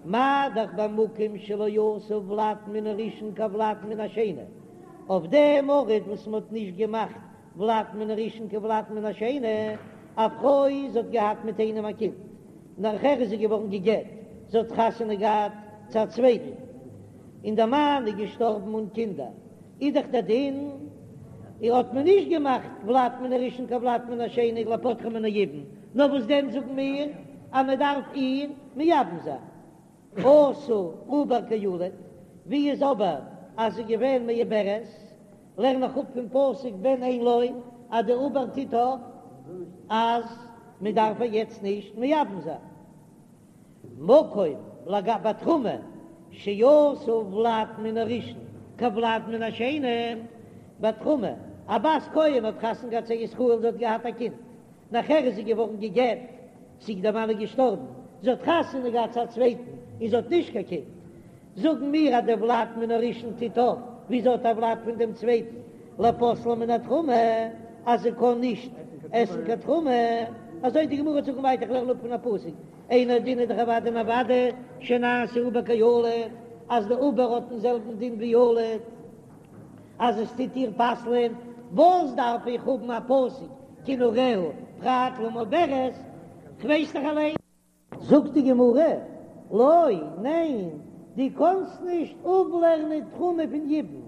מה דאך במקום שלא עשו ולד מן הראשון כולד מן השני, אויף דעם ארט וואס מען האט נישט געמאכט ולד מן הראשון כולד מן השני, א פרוי זי האט געהאט מיט איינעם א קינד, נאכער איז זי געווארן גע'גט, זי האט חתונה געהאט צו א צווייטן, און דער מאן איז געשטארבן אן קינדער, איז דאך דער דין, איר האט מען נישט געמאכט ולד מן הראשון כולד מן השני לפוטרה מן היבום, נאר וואס דען זאגן מיר אז מען דארף איר מייבם זיין. עשו עובר כילוד, ווי איז אבער אז זי איז געווען מעוברת, לערן איך אפ פון פסוק בן אין לו אז די עובר טוט אויף אז מען דארף איר יעצט נישט מייבם זיין. מקום לגבי תרומה שעשו ולד מן הראשון כולד מן השני, ביי תרומה, א בת כהן האט חתונה געהאט צו א ישראל זי האט געהאט א קינד, נאכער איז זי געווארן גע'גט, צי דער מאן איז געשטארבן, זי האט חתונה געהאט צו א צווייטן און זי האט נישט קיין קינד, זאגן מיר אז דער ולד מן הראשון טוט אויף ווי זי האט א ולד פון דעם צווייטן, לפוסלה מן התרומה, אז זי קען נישט עסן קיין תרומה, אזוי די גמרא זאגן ווייטער איך לערן אפ פון א פסוק, אינו דין איז דאך אוודאי און אוודאי שנעשה עובר כילוד, אז די עובר האט דעם זעלבן דין ווי ילוד. אז עס טוט איר פסל'ען. וואס דארף איך האבן א פסוק כנעוריה פרט למעוברת, כ'ווייס דאך אליין. זאגט די גמרא, לא, ניין, דו קאנסט נישט אפלערנען תרומה פון יבום.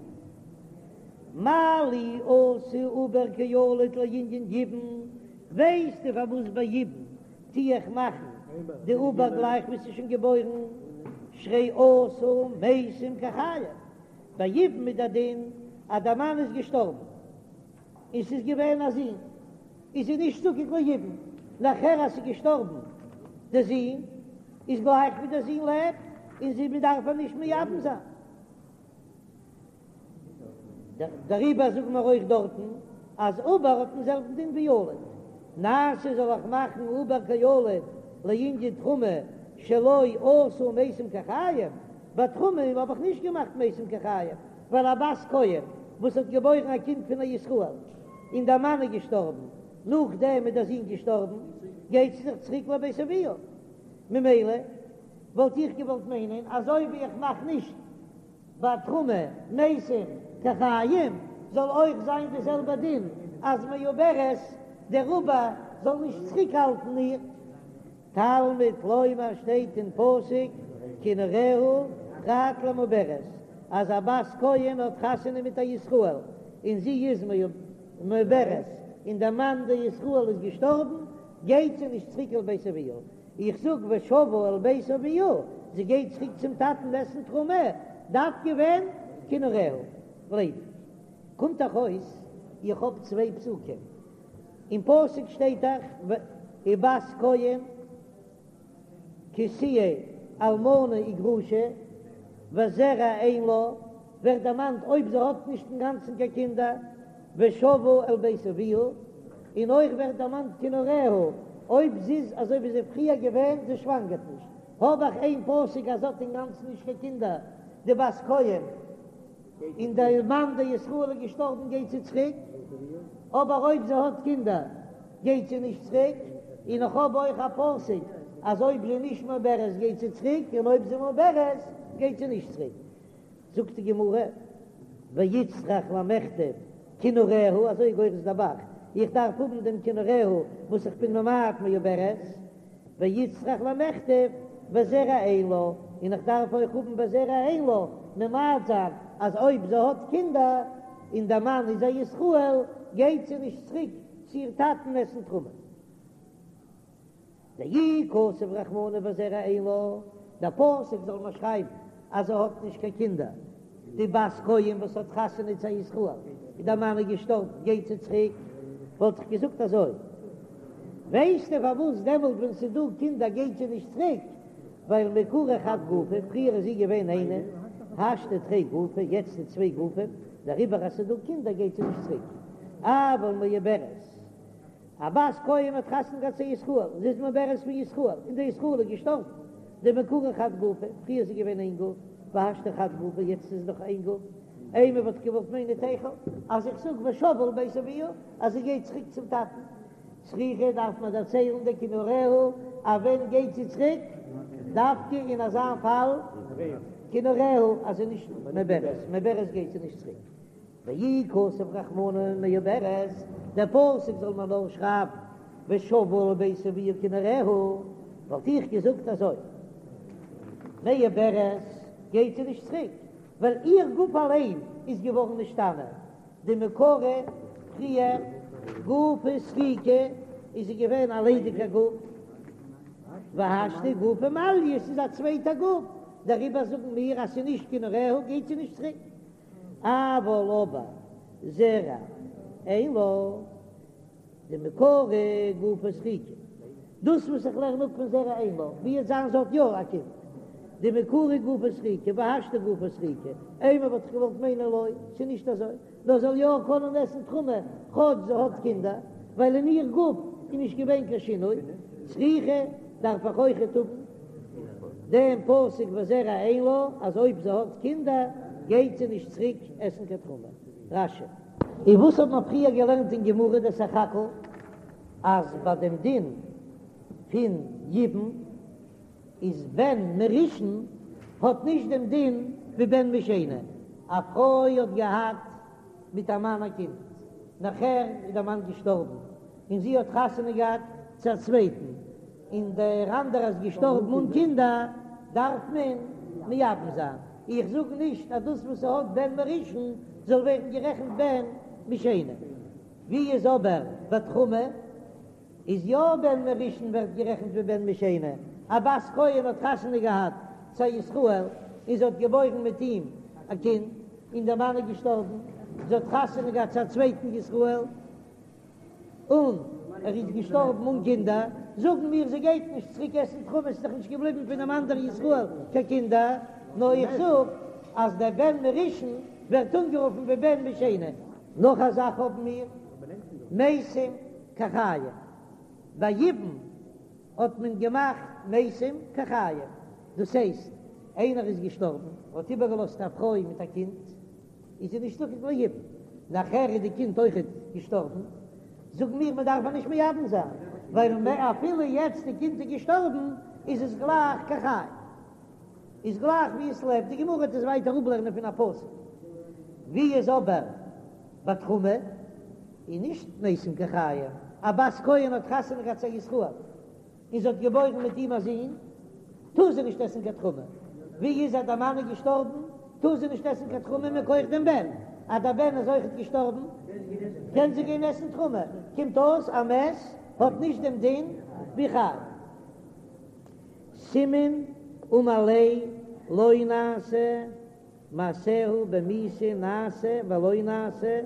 מה לי עשו עובר כילוד לענין יבום, ווייסטו פארוואס ביי יבום טו איך מאכן די עובר גלייך ווי ס'איז שוין געבוירן, שהרי עשה מתים כחיים, ביי יבום איז דער דין אז דער מאן איז געשטארבן און ס'איז געווען א זון, איז זי נישט זקוק ליבום, נאכער אז ס'איז געשטארבן דער זון איז גלייך ווי דער זון לעבט און זי מ'דארף איר נישט מייבם זיין. דעריבער זאגן מיר אויך דארטן אז עובר האט דעם זעלבן דין ווי ילוד, נעשה זאל איך מאכן עובר כילוד לענין תרומה שלא עשו מתים כחיים, ביי תרומה האב איך נישט געמאכט מתים כחיים, ווייל א בת כהן וואס האט געבוירן א קינד פון א ישראל און דער מאן איז געשטארבן, נאכדעם איז דער זון געשטארבן, גייט זי זיך צוריק לבית אביה, ממילא וואלט איך געוואלט מיינען אזוי ווי איך מאך נישט ביי תרומה מתים כחיים זאל אויך זיין די זעלבע דין אז מעוברת דער עובר זאל נישט צוריק האלטן איר. תלמוד לומר שטייט אין פסוק כנעוריה פרט למעוברת אז א בת כהן האט חתונה מיט א ישראל און זי איז מעוברת און דער מאן דער ישראל איז געשטארבן גייט זי נישט צוריק אל בית אביה איך זאג ושבה אל בית אביה, זי גייט צוריק צום טאטן עסן תרומה, דווקא ווען כנעוריה גלייב איך. קומט דאך אויס איך האב צוויי פסוקים, אין פסוק שטייט דאך ובת כהן כי תהיה אלמנה וגרושה וזרע אין לה, ווערט דערמאנט אויב זי האט נישט אינגאנצן קיין קינדער, ושבה אל בית אביה, און אויך ווערט דערמאנט כנעוריה, אויב זי איז אזוי ווי זי איז פריער געווען, זי שוואנגערט נישט, האב איך איין פסוק אז זי האט אינגאנצן נישט קיין קינדער, די בת כהן, און דער מאן דער ישראל איז געשטארבן גייט זי צוריק, אבער אויב זי האט קינדער גייט זי נישט צוריק, און איך האב אויך א פסוק אז אויב זי איז נישט מעוברת גייט זי צוריק, און אויב זי איז מעוברת גייט זי נישט צוריק. זאגט די גמרא, ואיצטריך למכתב כנעוריה, אזוי גורס דער ב"ח, איך דארף האבן דעם כנעוריה וואס איך בין ממעט מעוברת, ואיצטריך למכתב וזרע אין לה, און איך דארף אויך האבן וזרע אין לה, ממעט זיין אז אויב זי האט קינדער און דער מאן איז א ישראל גייט זי נישט צוריק צו איר טאטן עסן תרומה. דאי כתב רחמנא וזרע אין לה, דער פסוק זאל מיר שרייבן אז זי האט נישט קיין קינדער, די בת כהן וואס האט חתונה צו א ישראל און דער מאן איז געשטארבן גייט זי צוריק, וואלט איך געזאגט אזוי, ווייסטו פארוואס דעמאלט ווען ס'איז דא קינדער גייט זי נישט צוריק, ווייל מעיקרא חד גופא, פריער איז זי געווען איינע, השתא תרי גופי, יעצט איז צוויי גופים, דעריבער אז ס'איז דא קינדער גייט זי נישט צוריק, אבל מעוברת. א בת כהן האט חתונה געהאט צו א ישראל, זי איז מעוברת פון ישראל, און דער ישראל איז געשטארבן, דמעיקרא חד גופא, פריער איז זי געווען איין גוף, והשתא חד גופא, יעצט איז נאך איין גוף, אימא וואלט איך געוואלט מיינען תיכול, אז איך זאג ושבה אל בית אביה, אז זי גייט צוריק צום טאטן, צריכא דארף מען דערציילן דכנעוריה, אז ווען גייט זי צוריק, דווקא אין אזא פאל, כנעוריה, אז זי איז נישט מעוברת, מעוברת גייט זי נישט צוריק. ואי כתב רחמנא מעוברת, דער פסוק זאל מען נאר שרייבן ושבה אל בית אביה כנעוריה, וואלט איך געזאגט אזוי, מעוברת גייט זי נישט צוריק, ווייל איר גוף אליין איז געווארן נשתנה, דמעיקרא פריער גופא סריקא איז זי געווען א ליידיגע גוף, והשתא גופא מליא, ס'איז א צווייטע גוף, דעריבער זאגן מיר אז ס'איז נישט כנעוריה גייט זי נישט צוריק. אבל אבער זרע אין לה דמעיקרא גופא סריקא, דאס וואס איך לערן אפ פון זרע אין לה, ווי עס זיין זי האט יא א קינד, דמעיקרא גופא סריקא והשתא גופא סריקא, אימא וואלט איך געוואלט מיינען לא, ס'איז נישט אזוי, נאר זאל יא קענען עסן תרומה כאטש זי האט קינדער, ווייל אין איר גוף איז נישט געווען קיין שינוי, צריכא דארף איך אויכעט האבן. דעם פסוק וזרע אין לה אז אויב זי האט קינדער גייט זי נישט צוריק עסן קיין תרומה. רש"י. און וואס האט מען פריער געלערנט אין גמרא די סך הכל אז ביי דעם דין פון יבום איז בן מראשון האט נישט דעם דין ווי בן משני, א פרוי האט געהאט מיט א מאן א קינד. נאכער איז דער מאן געשטארבן און זי האט חתונה געהאט צו א צווייטן, און דער אנדערער איז געשטארבן אן קינדער, דארף מען מייבם זיין. איך זאג נישט אז דאס וואס ס'האט בן מראשון זאל ווערן גערעכנט בן משני. ווי איז אבער ביי תרומה? איז יא בן מראשון ווערט גערעכנט ווי בן משני, א בת כהן האט חתונה געהאט צו א ישראל און זי האט געבוירן מיט אים א קינד, און דער מאן איז געשטארבן, זי האט חתונה געהאט צו א צווייטן ישראל און ער איז געשטארבן אן קינדער, זאגן מיר זי גייט נישט צוריק עסן תרומה, ס'איז דאך נישט געבליבן פונעם אנדערן ישראל קיין קינדער, נאר איך זאג אז דער בן מראשון ווערט אנגערופן ווי בן משני. נאך א זאך האבן מיר מתים כחיים, ביי יבום האט מען געמאכט מתים כחיים, דאס הייסט איינער איז געשטארבן, האט איבערגעלאזט א פרוי מיט א קינד, איז זי נישט זקוק ליבום, נאכער איז די קינד אויכעט געשטארבן, זאגן מיר מען דארף איר נישט מייבם זיין, ווייל אפילו יעצט די קינד איז געשטארבן איז עס גלייך כחי. איז גלייך ווי עס לעבט, די גמרא וועט עס ווייטער אפלערנען פון א פסוק, ווי איז אבער ביי תרומה איז נישט מתים כחיים, א בת כהן האט חתונה געהאט צו א ישראל און זי האט געבוירן מיט אים א זון, טאר זי נישט עסן קיין תרומה, ווי איז אז דער מאן איז געשטארבן טאר זי נישט עסן קיין תרומה מכח דעם בן, אז דער בן איז אויכעט געשטארבן קען זי גיין עסן תרומה, קומט אויס א מת האט נישט דעם דין ווי חי. סימן אמר ליה לא נעשה מעשיה במיתה נעשה ולא נעשה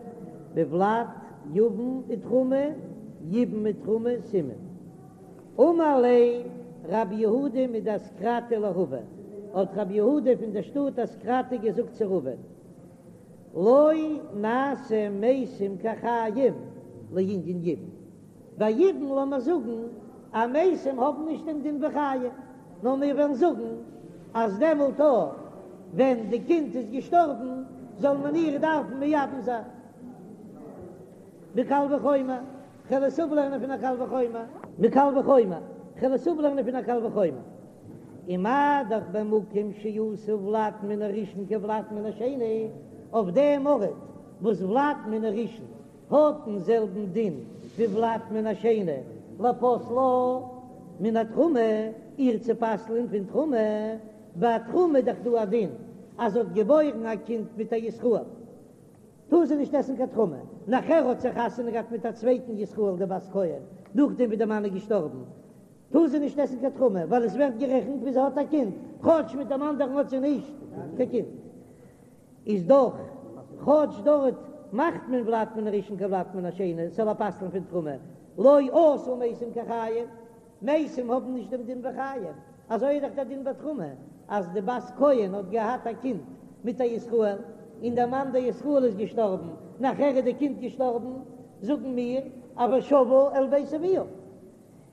בולד יבם ותרומה יבום ותרומה סימן אמר ליה רב יהודה מדאסקרתא לרבא האט רב יהודה פון דער שטאט אסקרתא געזאגט צו רבא לא נעשה מתים כחיים לענין יבום ביי יבום לאמיר זאגן אז מתים האבן נישט דעם דין ווי חיים, נאר מיר וועלן זאגן אז דעמאלט אויך ווען די קינד איז געשטארבן זאל מען איר דארפן מייבם זיין. מקל וחומר, כ'וועל עס אפלערנען פון א קל וחומר. מקל וחומר, כ'וועל עס אפלערנען פון א קל וחומר. ומה דאך במקום שעשו ולד מן הראשון כולד מן השני, אויף דעם ארט וואס ולד מן הראשון האט דעם זעלבן דין ווי ולד מן השני לפוסלה מן התרומה, איר צו פסל'ען פון תרומה, ביי תרומה איז דאך דא א דין אז זי האט געבוירן א קינד מיט א ישראל טאר זי נישט עסן קיין תרומה, נאכער האט זי חתונה געהאט מיט א צווייטן ישראל די בת כהן נאכדעם ווי די מאן איז געשטארבן טאר זי נישט עסן קיין תרומה ווייל עס ווערט גערעכנט ווי זי האט א קינד כאטש מיט דעם אנדערן האט זי נישט קיין קינד. איז דאך כאטש דארט מאכט מען ולד מן הראשון כולד מן השני ס'זאל איר פסל'ן פון תרומה, לא עשו מתים כחיים, מתים האבן נישט דעם דין ווי חיים, אזוי איז דאך דער דין ביי תרומה, אז די בת כהן האט געהאט א קינד מיט א ישראל, און דער מאן דער ישראל איז געשטארבן, נאכער איז די קינד געשטארבן, זאגן מיר אז ושבה אל בית אביה.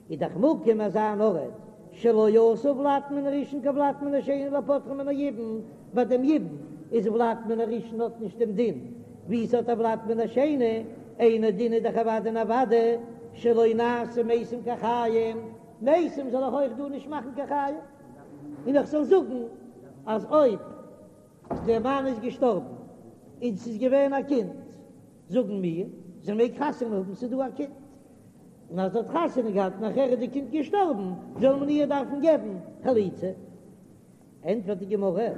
איז דאך מקום אזא אן ארט שלא עשו ולד מן הראשון כולד מן השני לפוטרה מן היבום, ביי דעם יבום איז ולד מן הראשון האט נישט דעם דין ווי ס'האט א ולד מן השני, אינו דין איז דאך אוודאי און אוודאי שלא נעשו מתים כחיים, מתים זאל איך אויך דא נישט מאכן כחיים, און איך זאל זאגן אז אויב דער מאן איז געשטארבן און ס'איז געווען א קינד זאגן מיר זי מעג חתונה האבן ס'איז דא א קינד. און אז זי האט חתונה געהאט נאכער איז די קינד געשטארבן, זאל מען איר דארפן געבן חליצה? ענטפערט די גמרא,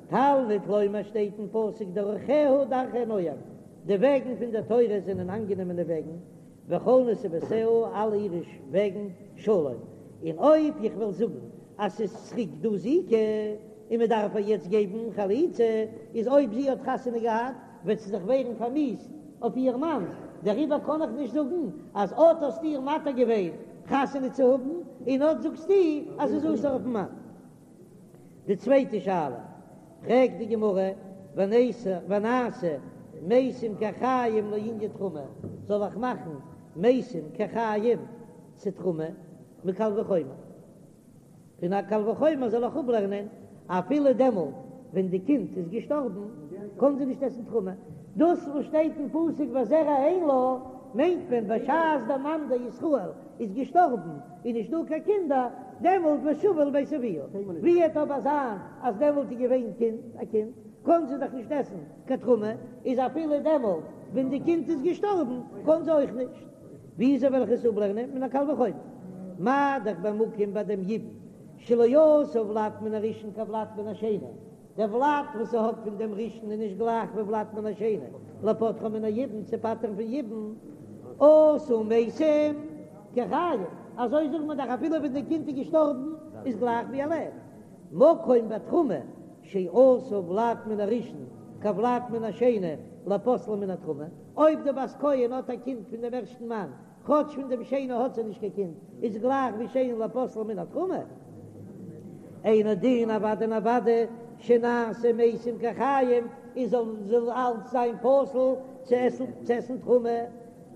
תלמוד לומר שטייט אין פסוק דרכיה דרכי נועם, די וועגן פון דער תורה זענען אנגענומענע וועגן, וכל נתיבותיה אלע אירע וועגן שלום, און אויב איך וועל זאגן אז ס'איז צוריק דא זיקה און מען דארף איר יעצט געבן חליצה, איז אויב זי האט חתונה געהאט וועט זי זיך ווערן פארמיאוסט אויף איר מאן, דעריבער קען איך נישט זאגן אז אט האסטו איר מתיר געווען חתונה צו האבן, און אט זאגסטו אז ס'איז אסור אויפן מאן. די צווייטע שאלה פרעגט די גמרא, ונעשה מתים כחיים לענין תרומה, זאל איך מאכן מתים כחיים צו תרומה מקל וחומר? פון א קל וחומר זאל איך אפלערנען, אפילו דעמאלט ווען די קינד איז געשטארבן קען זי נישט עסן תרומה. דאס וואס שטייט אין פסוק וזרע אין לה, מיינט מען בשעת דער מאן דער ישראל איז געשטארבן איז נישט דא קיין קינדער, דעמאלט ושבה אל בית אביה. ווי וועט אבער זיין אז דעמאלט איז געווען קינד א קינד, קען זי דאך נישט עסן קיין תרומה, איז אפילו דעמאלט. ווען די קינד איז געשטארבן קען זי אויך נישט. וויאזוי וועל איך עס אפלערנען מן הקל וחומר? מה דאך במקום ביי דעם יבום שלא עשה ולד מן הראשון כולד מן השני, דער ולד וואס זי האט פון דעם ראשון איז נישט גלייך ווי ולד מן השני, לפוטרה מן היבום צו פטר'ן פון יבום, עשה מתים כחיים, אזוי זאגט מען דאך אפילו ווען די קינד איז געשטארבן איז גלייך ווי ער לעבט, מקום בתרומה שעשה ולד מן הראשון כולד מן השני לפוסלה מן התרומה, אויב די בת כהן האט א קינד פון דעם ערשטן מאן, כאטש פון דעם שני האט זי נישט קיין קינד, איז גלייך ווי שני לפוסלה מן התרומה. אינו דין אוודאי און אוודאי שנעשה מתים כחיים, און זאל זאל אלץ זיין פסול צו עסן צו עסן תרומה.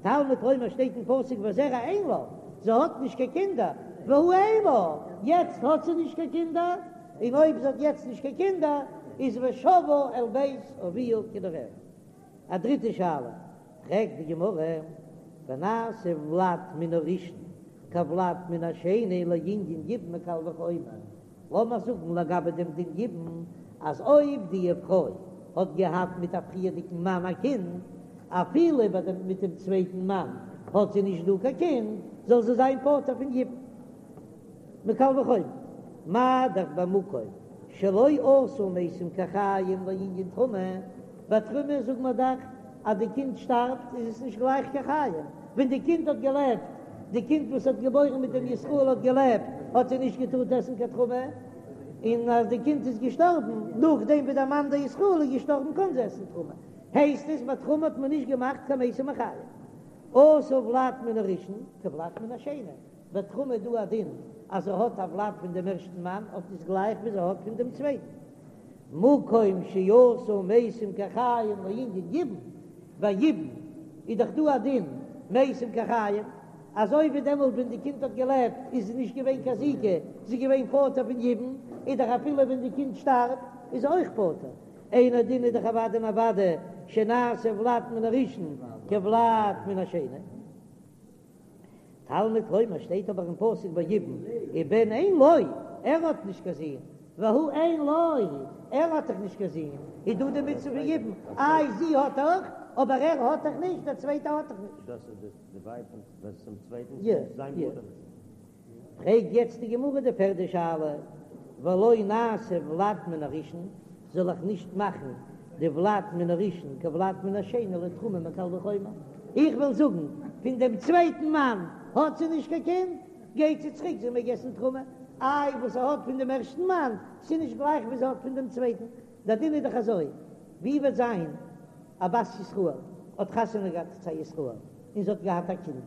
תלמוד לומר שטייט אין פסוק וזרע אין לה, זי האט נישט קיין קינדער, והא אין לה, יעצט האט זי נישט קיין קינדער, און אויב זי האט יעצט נישט קיין קינדער איז ושבה אל בית אביה כנעוריה. א דריטע שאלה פרעגט די גמרא, ונעשה ולד מן הראשון כולד מן השני לענין יבום מקל וחומר, לאמיר זאגן לגבי דעם דין יבום, אז אויב די פרוי האט געהאט מיט א פריערדיגן מאן א קינד, אפילו ביי דעם מיט דעם צווייטן מאן האט זי נישט דא קיין קינד, זאל זי זיין פטור פון יבום. מקל וחומר, מה דאך במקום שלא עשו מתים כחיים לענין תרומה, ביי תרומה זאגט מען דאך אז די קינד שטארבט איז עס נישט גלייך כחיים, ווען די קינד האט געלעבט, די קינד וואס האט געבוירן מיט דעם ישראל האט געלעבט, האט זי נישט געטארט עסן קיין תרומה, און אז די קינד איז געשטארבן נאכדעם ווי דער מאן דער ישראל איז געשטארבן קען זי עסן תרומה, הייסט עס ביי תרומה האט מען נישט געמאכט קיין מתים כחיים. עשה ולד מן הראשון כולד מן השני. ביי תרומה איז דא א דין אז זי האט א ולד פון דעם ערשטן מאן האט עס גלייך ווי זי האט פון דעם צווייטן. מקום שעשו מתים כחיים לענין יבום, ביי יבום איז דאך דא א דין מתים כחיים, אזוי ווי דעמאלט ווען די קינד האט געלעבט איז זי נישט געווען קיין זיקה, זי איז געווען פטור פון יבום, איז דאך אפילו ווען די קינד שטארבט איז זי אויך פטור. אינו דין איז דאך אוודאי און אוודאי שנעשה ולד מן הראשון כולד מן השני. תלמוד לומר שטייט אבער אין פסוק ביי יבום ובן אין לו, ער האט נישט קיין זון, והא אין לו, ער האט דאך נישט קיין זון, איז דא די מצוה פון יבום, איי זי האט דאך, אבער ער האט דאך נישט, דער צווייטער האט דאך נישט. דאס איז די ווייב פון צום צווייטן, יא, זיין יא. מוטער. פרעגט יעצט די גמרא די פערדע שאלה, ולא נעשה ולד מן הראשון, זאל איך נישט מאכן די ולד מן הראשון כולד מן השני לתרומה מקל וחומר? איך וויל זאגן, פון דעם צווייטן מאן האט זי נישט קיין קינד, גייט זי צוריק זי מעג עסן תרומה, איי וואס זי האט פון דעם ערשטן מאן, ס'איז נישט גלייך ווי זי האט פון דעם צווייטן, דער דין איז דאך אזוי, ווי וועט זיין א בת ישראל האט חתונה געהאט צו א ישראל און זי האט געהאט א קינד,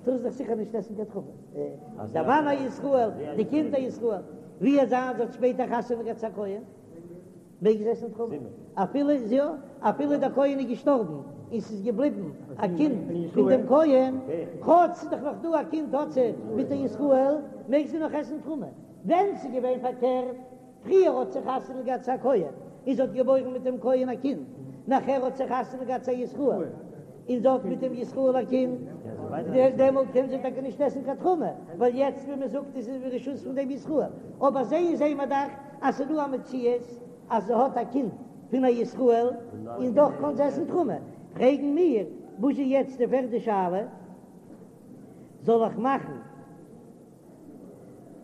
טאר זי דאך זיכער נישט עסן קיין תרומה. דער מאן א ישראל, די קינד א ישראל, ווי וועט זיין זי האט שפעטער חתונה געהאט צו א כהן, מעג זי עסן תרומה, אפילו יא, אפילו דער כהן איז געשטארבן און ס'איז געבליבן א קינד פון דעם כהן, כאטש ס'איז דאך נאך דא א קינד האט זי מיט א ישראל, מעג זי נאך עסן תרומה. ווען ס'איז געווען פארקערט, פריער האט זי חתונה געהאט צו א כהן, און זי האט געבוירן מיט דעם כהן א קינד, נאכער האט זי חתונה געהאט צו א ישראל, און זי האט מיט דעם ישראל א קינד, דעמאלט קען זי טאקע נישט עסן קיין תרומה, ווייל יעצט ווי מען זאגט איז זי ברשות פון דעם ישראל, אבער זעהן זעהן מיר דאך אז ס'איז דא א מציאות אז זי האט א קינד פון א ישראל, און דאך קען זי עסן תרומה, פרעגן מיר, וואס איז יעצט די פערדע שאלה, זאל איך מאכן?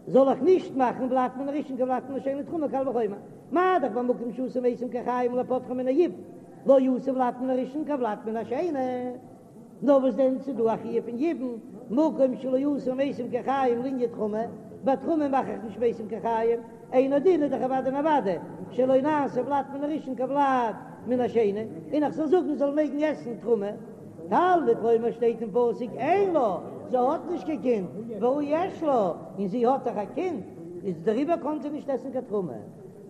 זאל איך נישט מאכן ולד מן הראשון כולד מן השני לתרומה קל וחומר, מה דאך במקום שעשו מתים כחיים לפוטרה מן היבום, לא עשו ולד מן הראשון כולד מן השני, נאר וואס דען ס'איז דא א חיוב פון יבום, מקום שלא עשו מתים כחיים לענין תרומה, ביי תרומה מאך איך נישט מתים כחיים, אינו דין איז דאך אוודאי און אוודאי שלא נעשה ולד מן הראשון כולד מן השני, און איך זאל זאגן זאל מעגן עסן תרומה. תלמוד לומר שטייט אין פסוק אין לה, זי האט נישט קיין קינד, והא יש לה, און זי האט דאך א קינד, איז דעריבער קען זי נישט עסן קיין תרומה.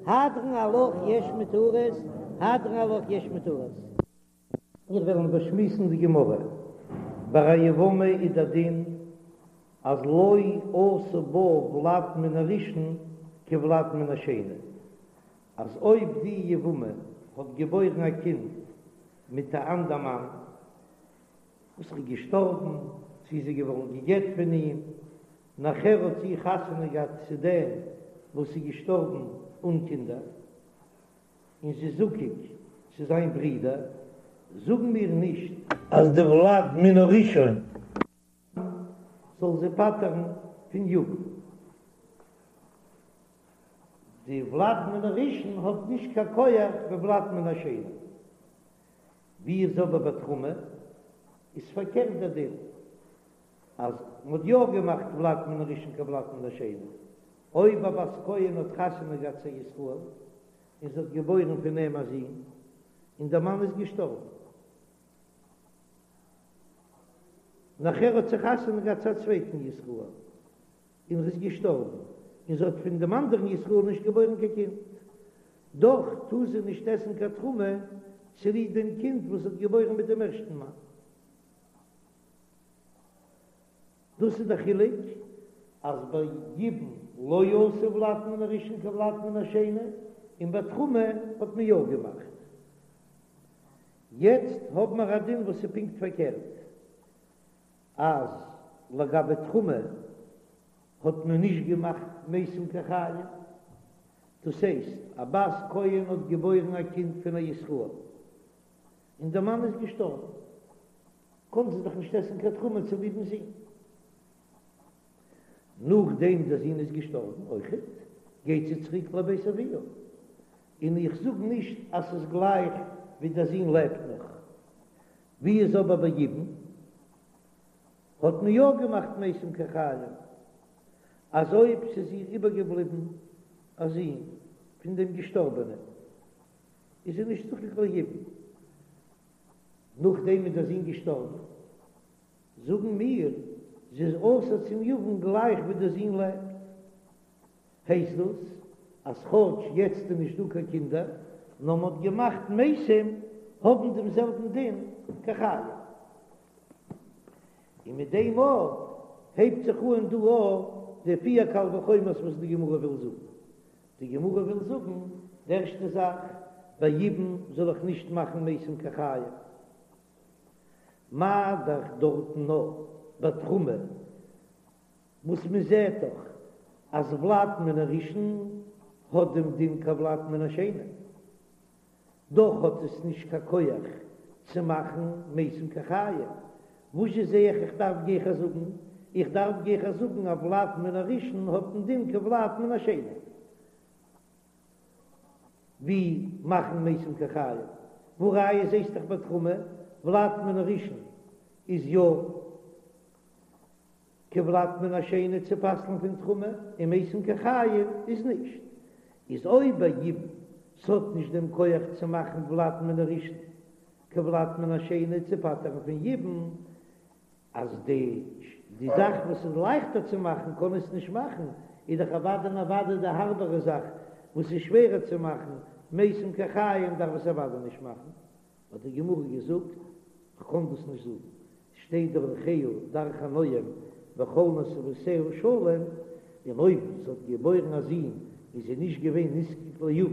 הדרן עלך יש מותרות, הדרן עלך יש מותרות. מיר וועלן באשמועסן די גמרא. ביי א יבמה איז דער דין אז לא עשה בה ולד מן הראשון כולד מן השני, אז אויב די יבמה האט געבוירן א קינד מיט א אנדער מאן וואס איז געשטארבן, צי זי איז געווארן גע'גט פון אים, נאכער האט זי חתונה געהאט צו דעם וואס איז געשטארבן אן קינדער, און זי איז זקוק צו זיין ברודער. זאגן מיר נישט אז די ולד מן הראשון זאל זי פטר'ן פון יבום. די ולד מן הראשון האט נישט קיין כח ווי ולד מן השני. ווי איז אבער ביי תרומה? איז פארקערט דער דין, אז מען האט יא געמאכט ולד מן הראשון כולד מן השני. אויב א בת כהן האט חתונה געהאט צו א ישראל, און זי האט געבוירן פון אים א זון, און דער מאן איז געשטארבן, נאכער האט זי חתונה געהאט צו א צווייטן ישראל, און ער איז געשטארבן, און זי האט פון דעם אנדערן ישראל נישט געבוירן קיין קינד, דאך טאר זי נישט עסן קיין תרומה צוליב דעם קינד וואס זי האט געבוירן מיט דעם ערשטן מאן. דאס איז דער חילוק, אז ביי יבום לא עשו ולד מן הראשון כולד מן השני, און ביי תרומה האט מען יא געמאכט. יעצט האבן מיר א דין וואס איז פונקט פארקערט, אז לגבי תרומה האט מען נישט געמאכט מתים כחיים, דאס הייסט א בת כהן האט געבוירן א קינד פון א ישראל און דער מאן איז געשטארבן, קען זי דאך נישט עסן קיין תרומה צוליבן זון. נאכדעם דער זון איז געשטארבן אויכעט, גייט זי צוריק לבית אביה, און איך זאג נישט אז ס'איז גלייך ווי דער זון לעבט נאך. ווי איז אבער ביי יבום? האט מען יא געמאכט מתים כחיים, אז אויב ס'איז איר איבערגעבליבן א זון פון דעם געשטארבענעם, איז זי נישט זקוק ליבום. נאכדעם איז דער זון געשטארבן, זאגן מיר, זי איז אסור צום יבם גלייך ווי דער זון לעבט. הייסט דאס אז כאטש יעצט איז נישט דא קיין קינדער, נאר מען האט געמאכט מתים האבן דעם זעלבן דין כחיים. און מיט דעם אויך הייבט זיך אן דא אויך די פיר קל וחומר'ס וואס די גמרא וויל זאגן. די גמרא וויל זאגן, די ערשטע זאך, ביי יבום זאל איך נישט מאכן מתים כחיים. מה דאך דארטן נאר ביי תרומה, וואס מען זעט דאך אז ולד מן הראשון האט דעם דין כולד מן השני, דאך האט עס נישט קיין כח צו מאכן מתים כחיים, וואזשע זע איך איך דארף גיכער זאגן? איך דארף גיכער זאגן אז ולד מן הראשון האט דעם דין כולד מן השני, ווי מאכן מתים כחיים, והא ראיה זעסט דאך ביי תרומה, ולד מן הראשון איז יא כולד מן השני צו פסל'ן פון תרומה, און מתים כחיים איז נישט. איז אויב ביי יבום ס'האט נישט דעם כח צו מאכן ולד מן הראשון כולד מן השני צו פטר'ן פון יבום, אז די די זאך וואס איז לייכטער צו מאכן קען עס נישט מאכן, איז דאך אוודאי און אוודאי די הארבערע זאך וואס איז שווערער צו מאכן, מתים כחיים דארף עס אוודאי נישט מאכן. האט די גמרא געזאגט, כ'קען דאס נישט זאגן, שטייט דרכיה דרכי נועם וכל נתיבותיה שלום, און אויב זי האט געבוירן א זון איז זי נישט געווען נזקק ליבם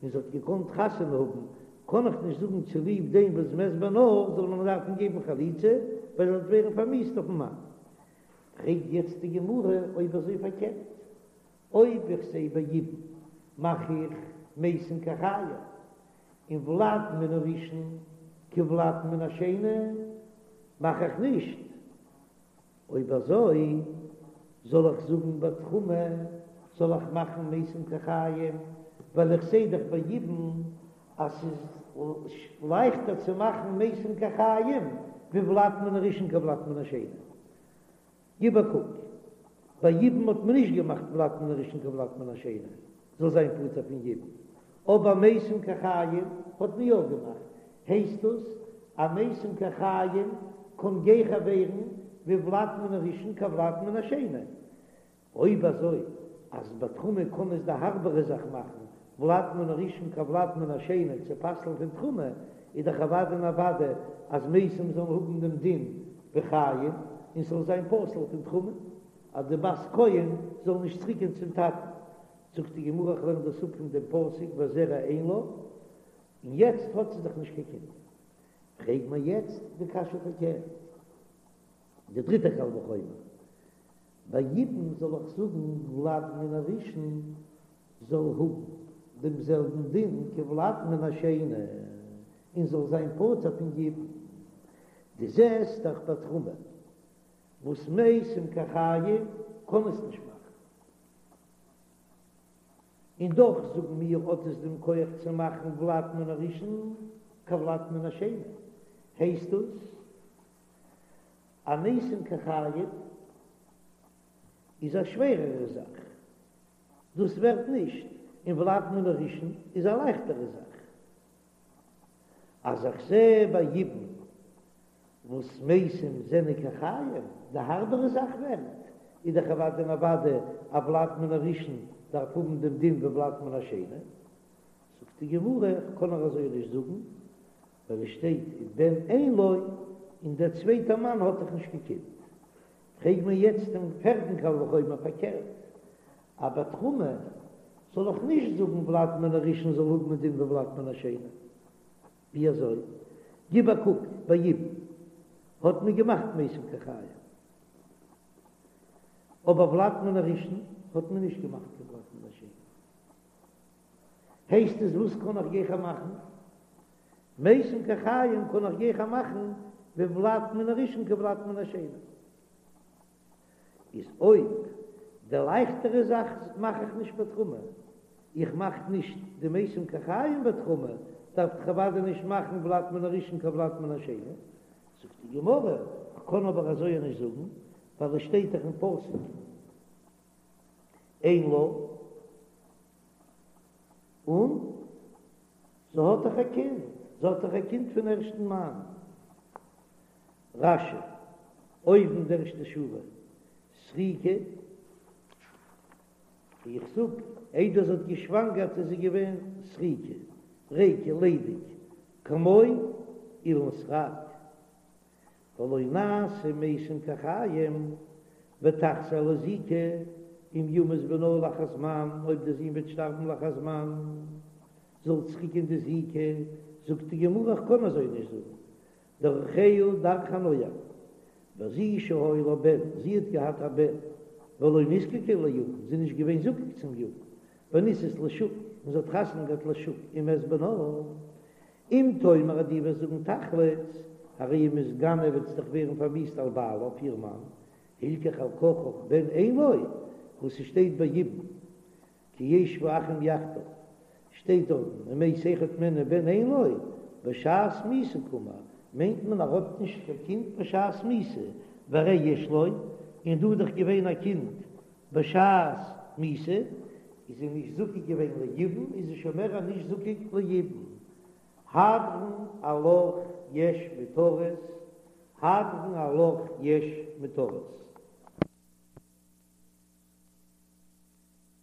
און זי האט געקאנט חתונה האבן, קען איך נישט זאגן צוליב דעם וואס מת בנה זאל מען דארפן געבן חליצה ווייל זי וועט ווערן פארמיאוסט אויפן מאן. פרעגט יעצט די גמרא אויב אזוי פארקערט, אויב איך זע ביי יבום מאך איך מתים כחיים, און ולד מן הראשון כולד מן השני מאך איך נישט, אויב אזוי זאל איך זאגן ביי תרומה זאל איך מאכן מתים כחיים, ווייל איך זע דאך ביי יבום אז ס'איז לייכטער צו מאכן מתים כחיים ווי ולד מן הראשון כולד מן השני. גיב א קוק, ביי יבום האט מען נישט געמאכט ולד מן הראשון כולד מן השני זאל זיין פטור פון יבום, אבער מתים כחיים האט מען יא געמאכט, הייסט דאס אז מתים כחיים קען גיכער ווערן ווי ולד מן הראשון כולד מן השני, אויב אזוי אז ביי תרומה קען עס די הארבערע זאך מאכן ולד מן הראשון כולד מן השני צו פסל'ן פון תרומה, איז דאך אוודאי און אוודאי אז מתים זאלן האבן דעם דין ווי חיים און ס'זאל זיין פסול פון תרומה, אז די בת כהן זאל נישט צוריקגיין צום טאטן. זאגט די גמרא איך לערן דאס אפ פון דעם פסוק וזרע אין לה, און יעצט האט זי דאך נישט קיין קינד. פרעג מיר יעצט די קשיא פארקערט. די דריטע קל וחומר, ביי יבום זאל איך זאגן ולד מן הראשון זאל האבן דעם זעלבן דין כולד מן השני. און זאל זיין פטור פון יבום. דו זעסט דאך ביי תרומה וואס מתים כחיים קען עס נישט מאכן, און דאך זאגן מיר האט עס דעם כח צו מאכן ולד מן הראשון כולד מן השני, הייסט דאס אז מתים כחיים איז א שווערערע זאך, דאס ווערט נישט, און ולד מן הראשון איז א לייכטערע זאך. אז איך זע ביי יבום וואס מתים זענען כחיים, די הארבערע זאך ווערט, איז דאך אוודאי און אוודאי א ולד מן הראשון דארף האבן דעם דין ווי ולד מן השני. זאגט די גמרא, איך קען נאר אזוי נישט זאגן, ווייל עס שטייט ובן אין לו, און דער צווייטער מאן האט דאך נישט קיין קינד. פרעג מיר יעצט דעם פערטן קל וחומר פארקערט, אז ביי תרומה זאל איך נישט זאגן ולד מן הראשון זאל האבן דין ווי ולד מן השני. ווי אזוי? גיב א קוק ביי יבום האט מען געמאכט מתים כחיים, אבער ולד מן הראשון האט מען נישט געמאכט קיין ולד מן השני. הייסט עס וואס קען איך גיכער מאכן? מתים כחיים קען איך גיכער מאכן ווי ולד מן הראשון כולד מן השני. איז אויב די לייכטערע זאך מאך איך נישט בתרומה, איך מאך נישט די מתים כחיים בתרומה, דארף איך אוודאי נישט מאכן ולד מן הראשון כולד מן השני. זאגט די גמרא, כ'קען אבער אזוי נישט זאגן, ווייל עס שטייט דאך אין פסוק אין לה, און זי האט דאך א קינד, זי האט דאך א קינד פון ערשטן מאן. רש"י, אויבן די ערשטע שורה, סריקא, איך זאג, איידער זי האט געשוואנגערט איז זי געווען סריקא, ריקא, ליידיג, כמו אילן סרק, ולא נעשו מתים כחיים, ותחזור לזיקה, אם ימות בנה לאחר זמן, אויב די זון וועט שטארבן לאחר זמן, זאל צוריקגיין די זיקה, זאגט די גמרא איך קען אזוי נישט זאגן, דרכיה דרכי נועם, וזו שהיה לה בן, זי האט געהאט א בן, ולא נזקקה ליבם, זי איז נישט געווען זקוק צום יבם, ונישאת לשוק, און זי האט חתונה געהאט לשוק, ומת בנה. אם תאמר אז דו וועסט זאגן תחלוץ, הרי היא מתגנה וועט זי דאך ווערן פארמיאוסט על בעלה אויף איר מאן, הלכך על כרחך בן אין לו, וואס ס'שטייט ביי יבום, כי ישבו אחים יחדיו, שטייט דארטן ומת אחד מהן ובן אין לו, בשעת מיתה קאמר, מיינט מען ער האט נישט קיין קינד בשעת מיתה, והרי יש לו, און דא איז דאך געווען א קינד בשעת מיתה, איז זי נישט זקוק געווען ליבום, איז זי שוין מער נישט זקוק ליבום. הדרן עלך יש מותרות, הדרן עלך יש מותרות.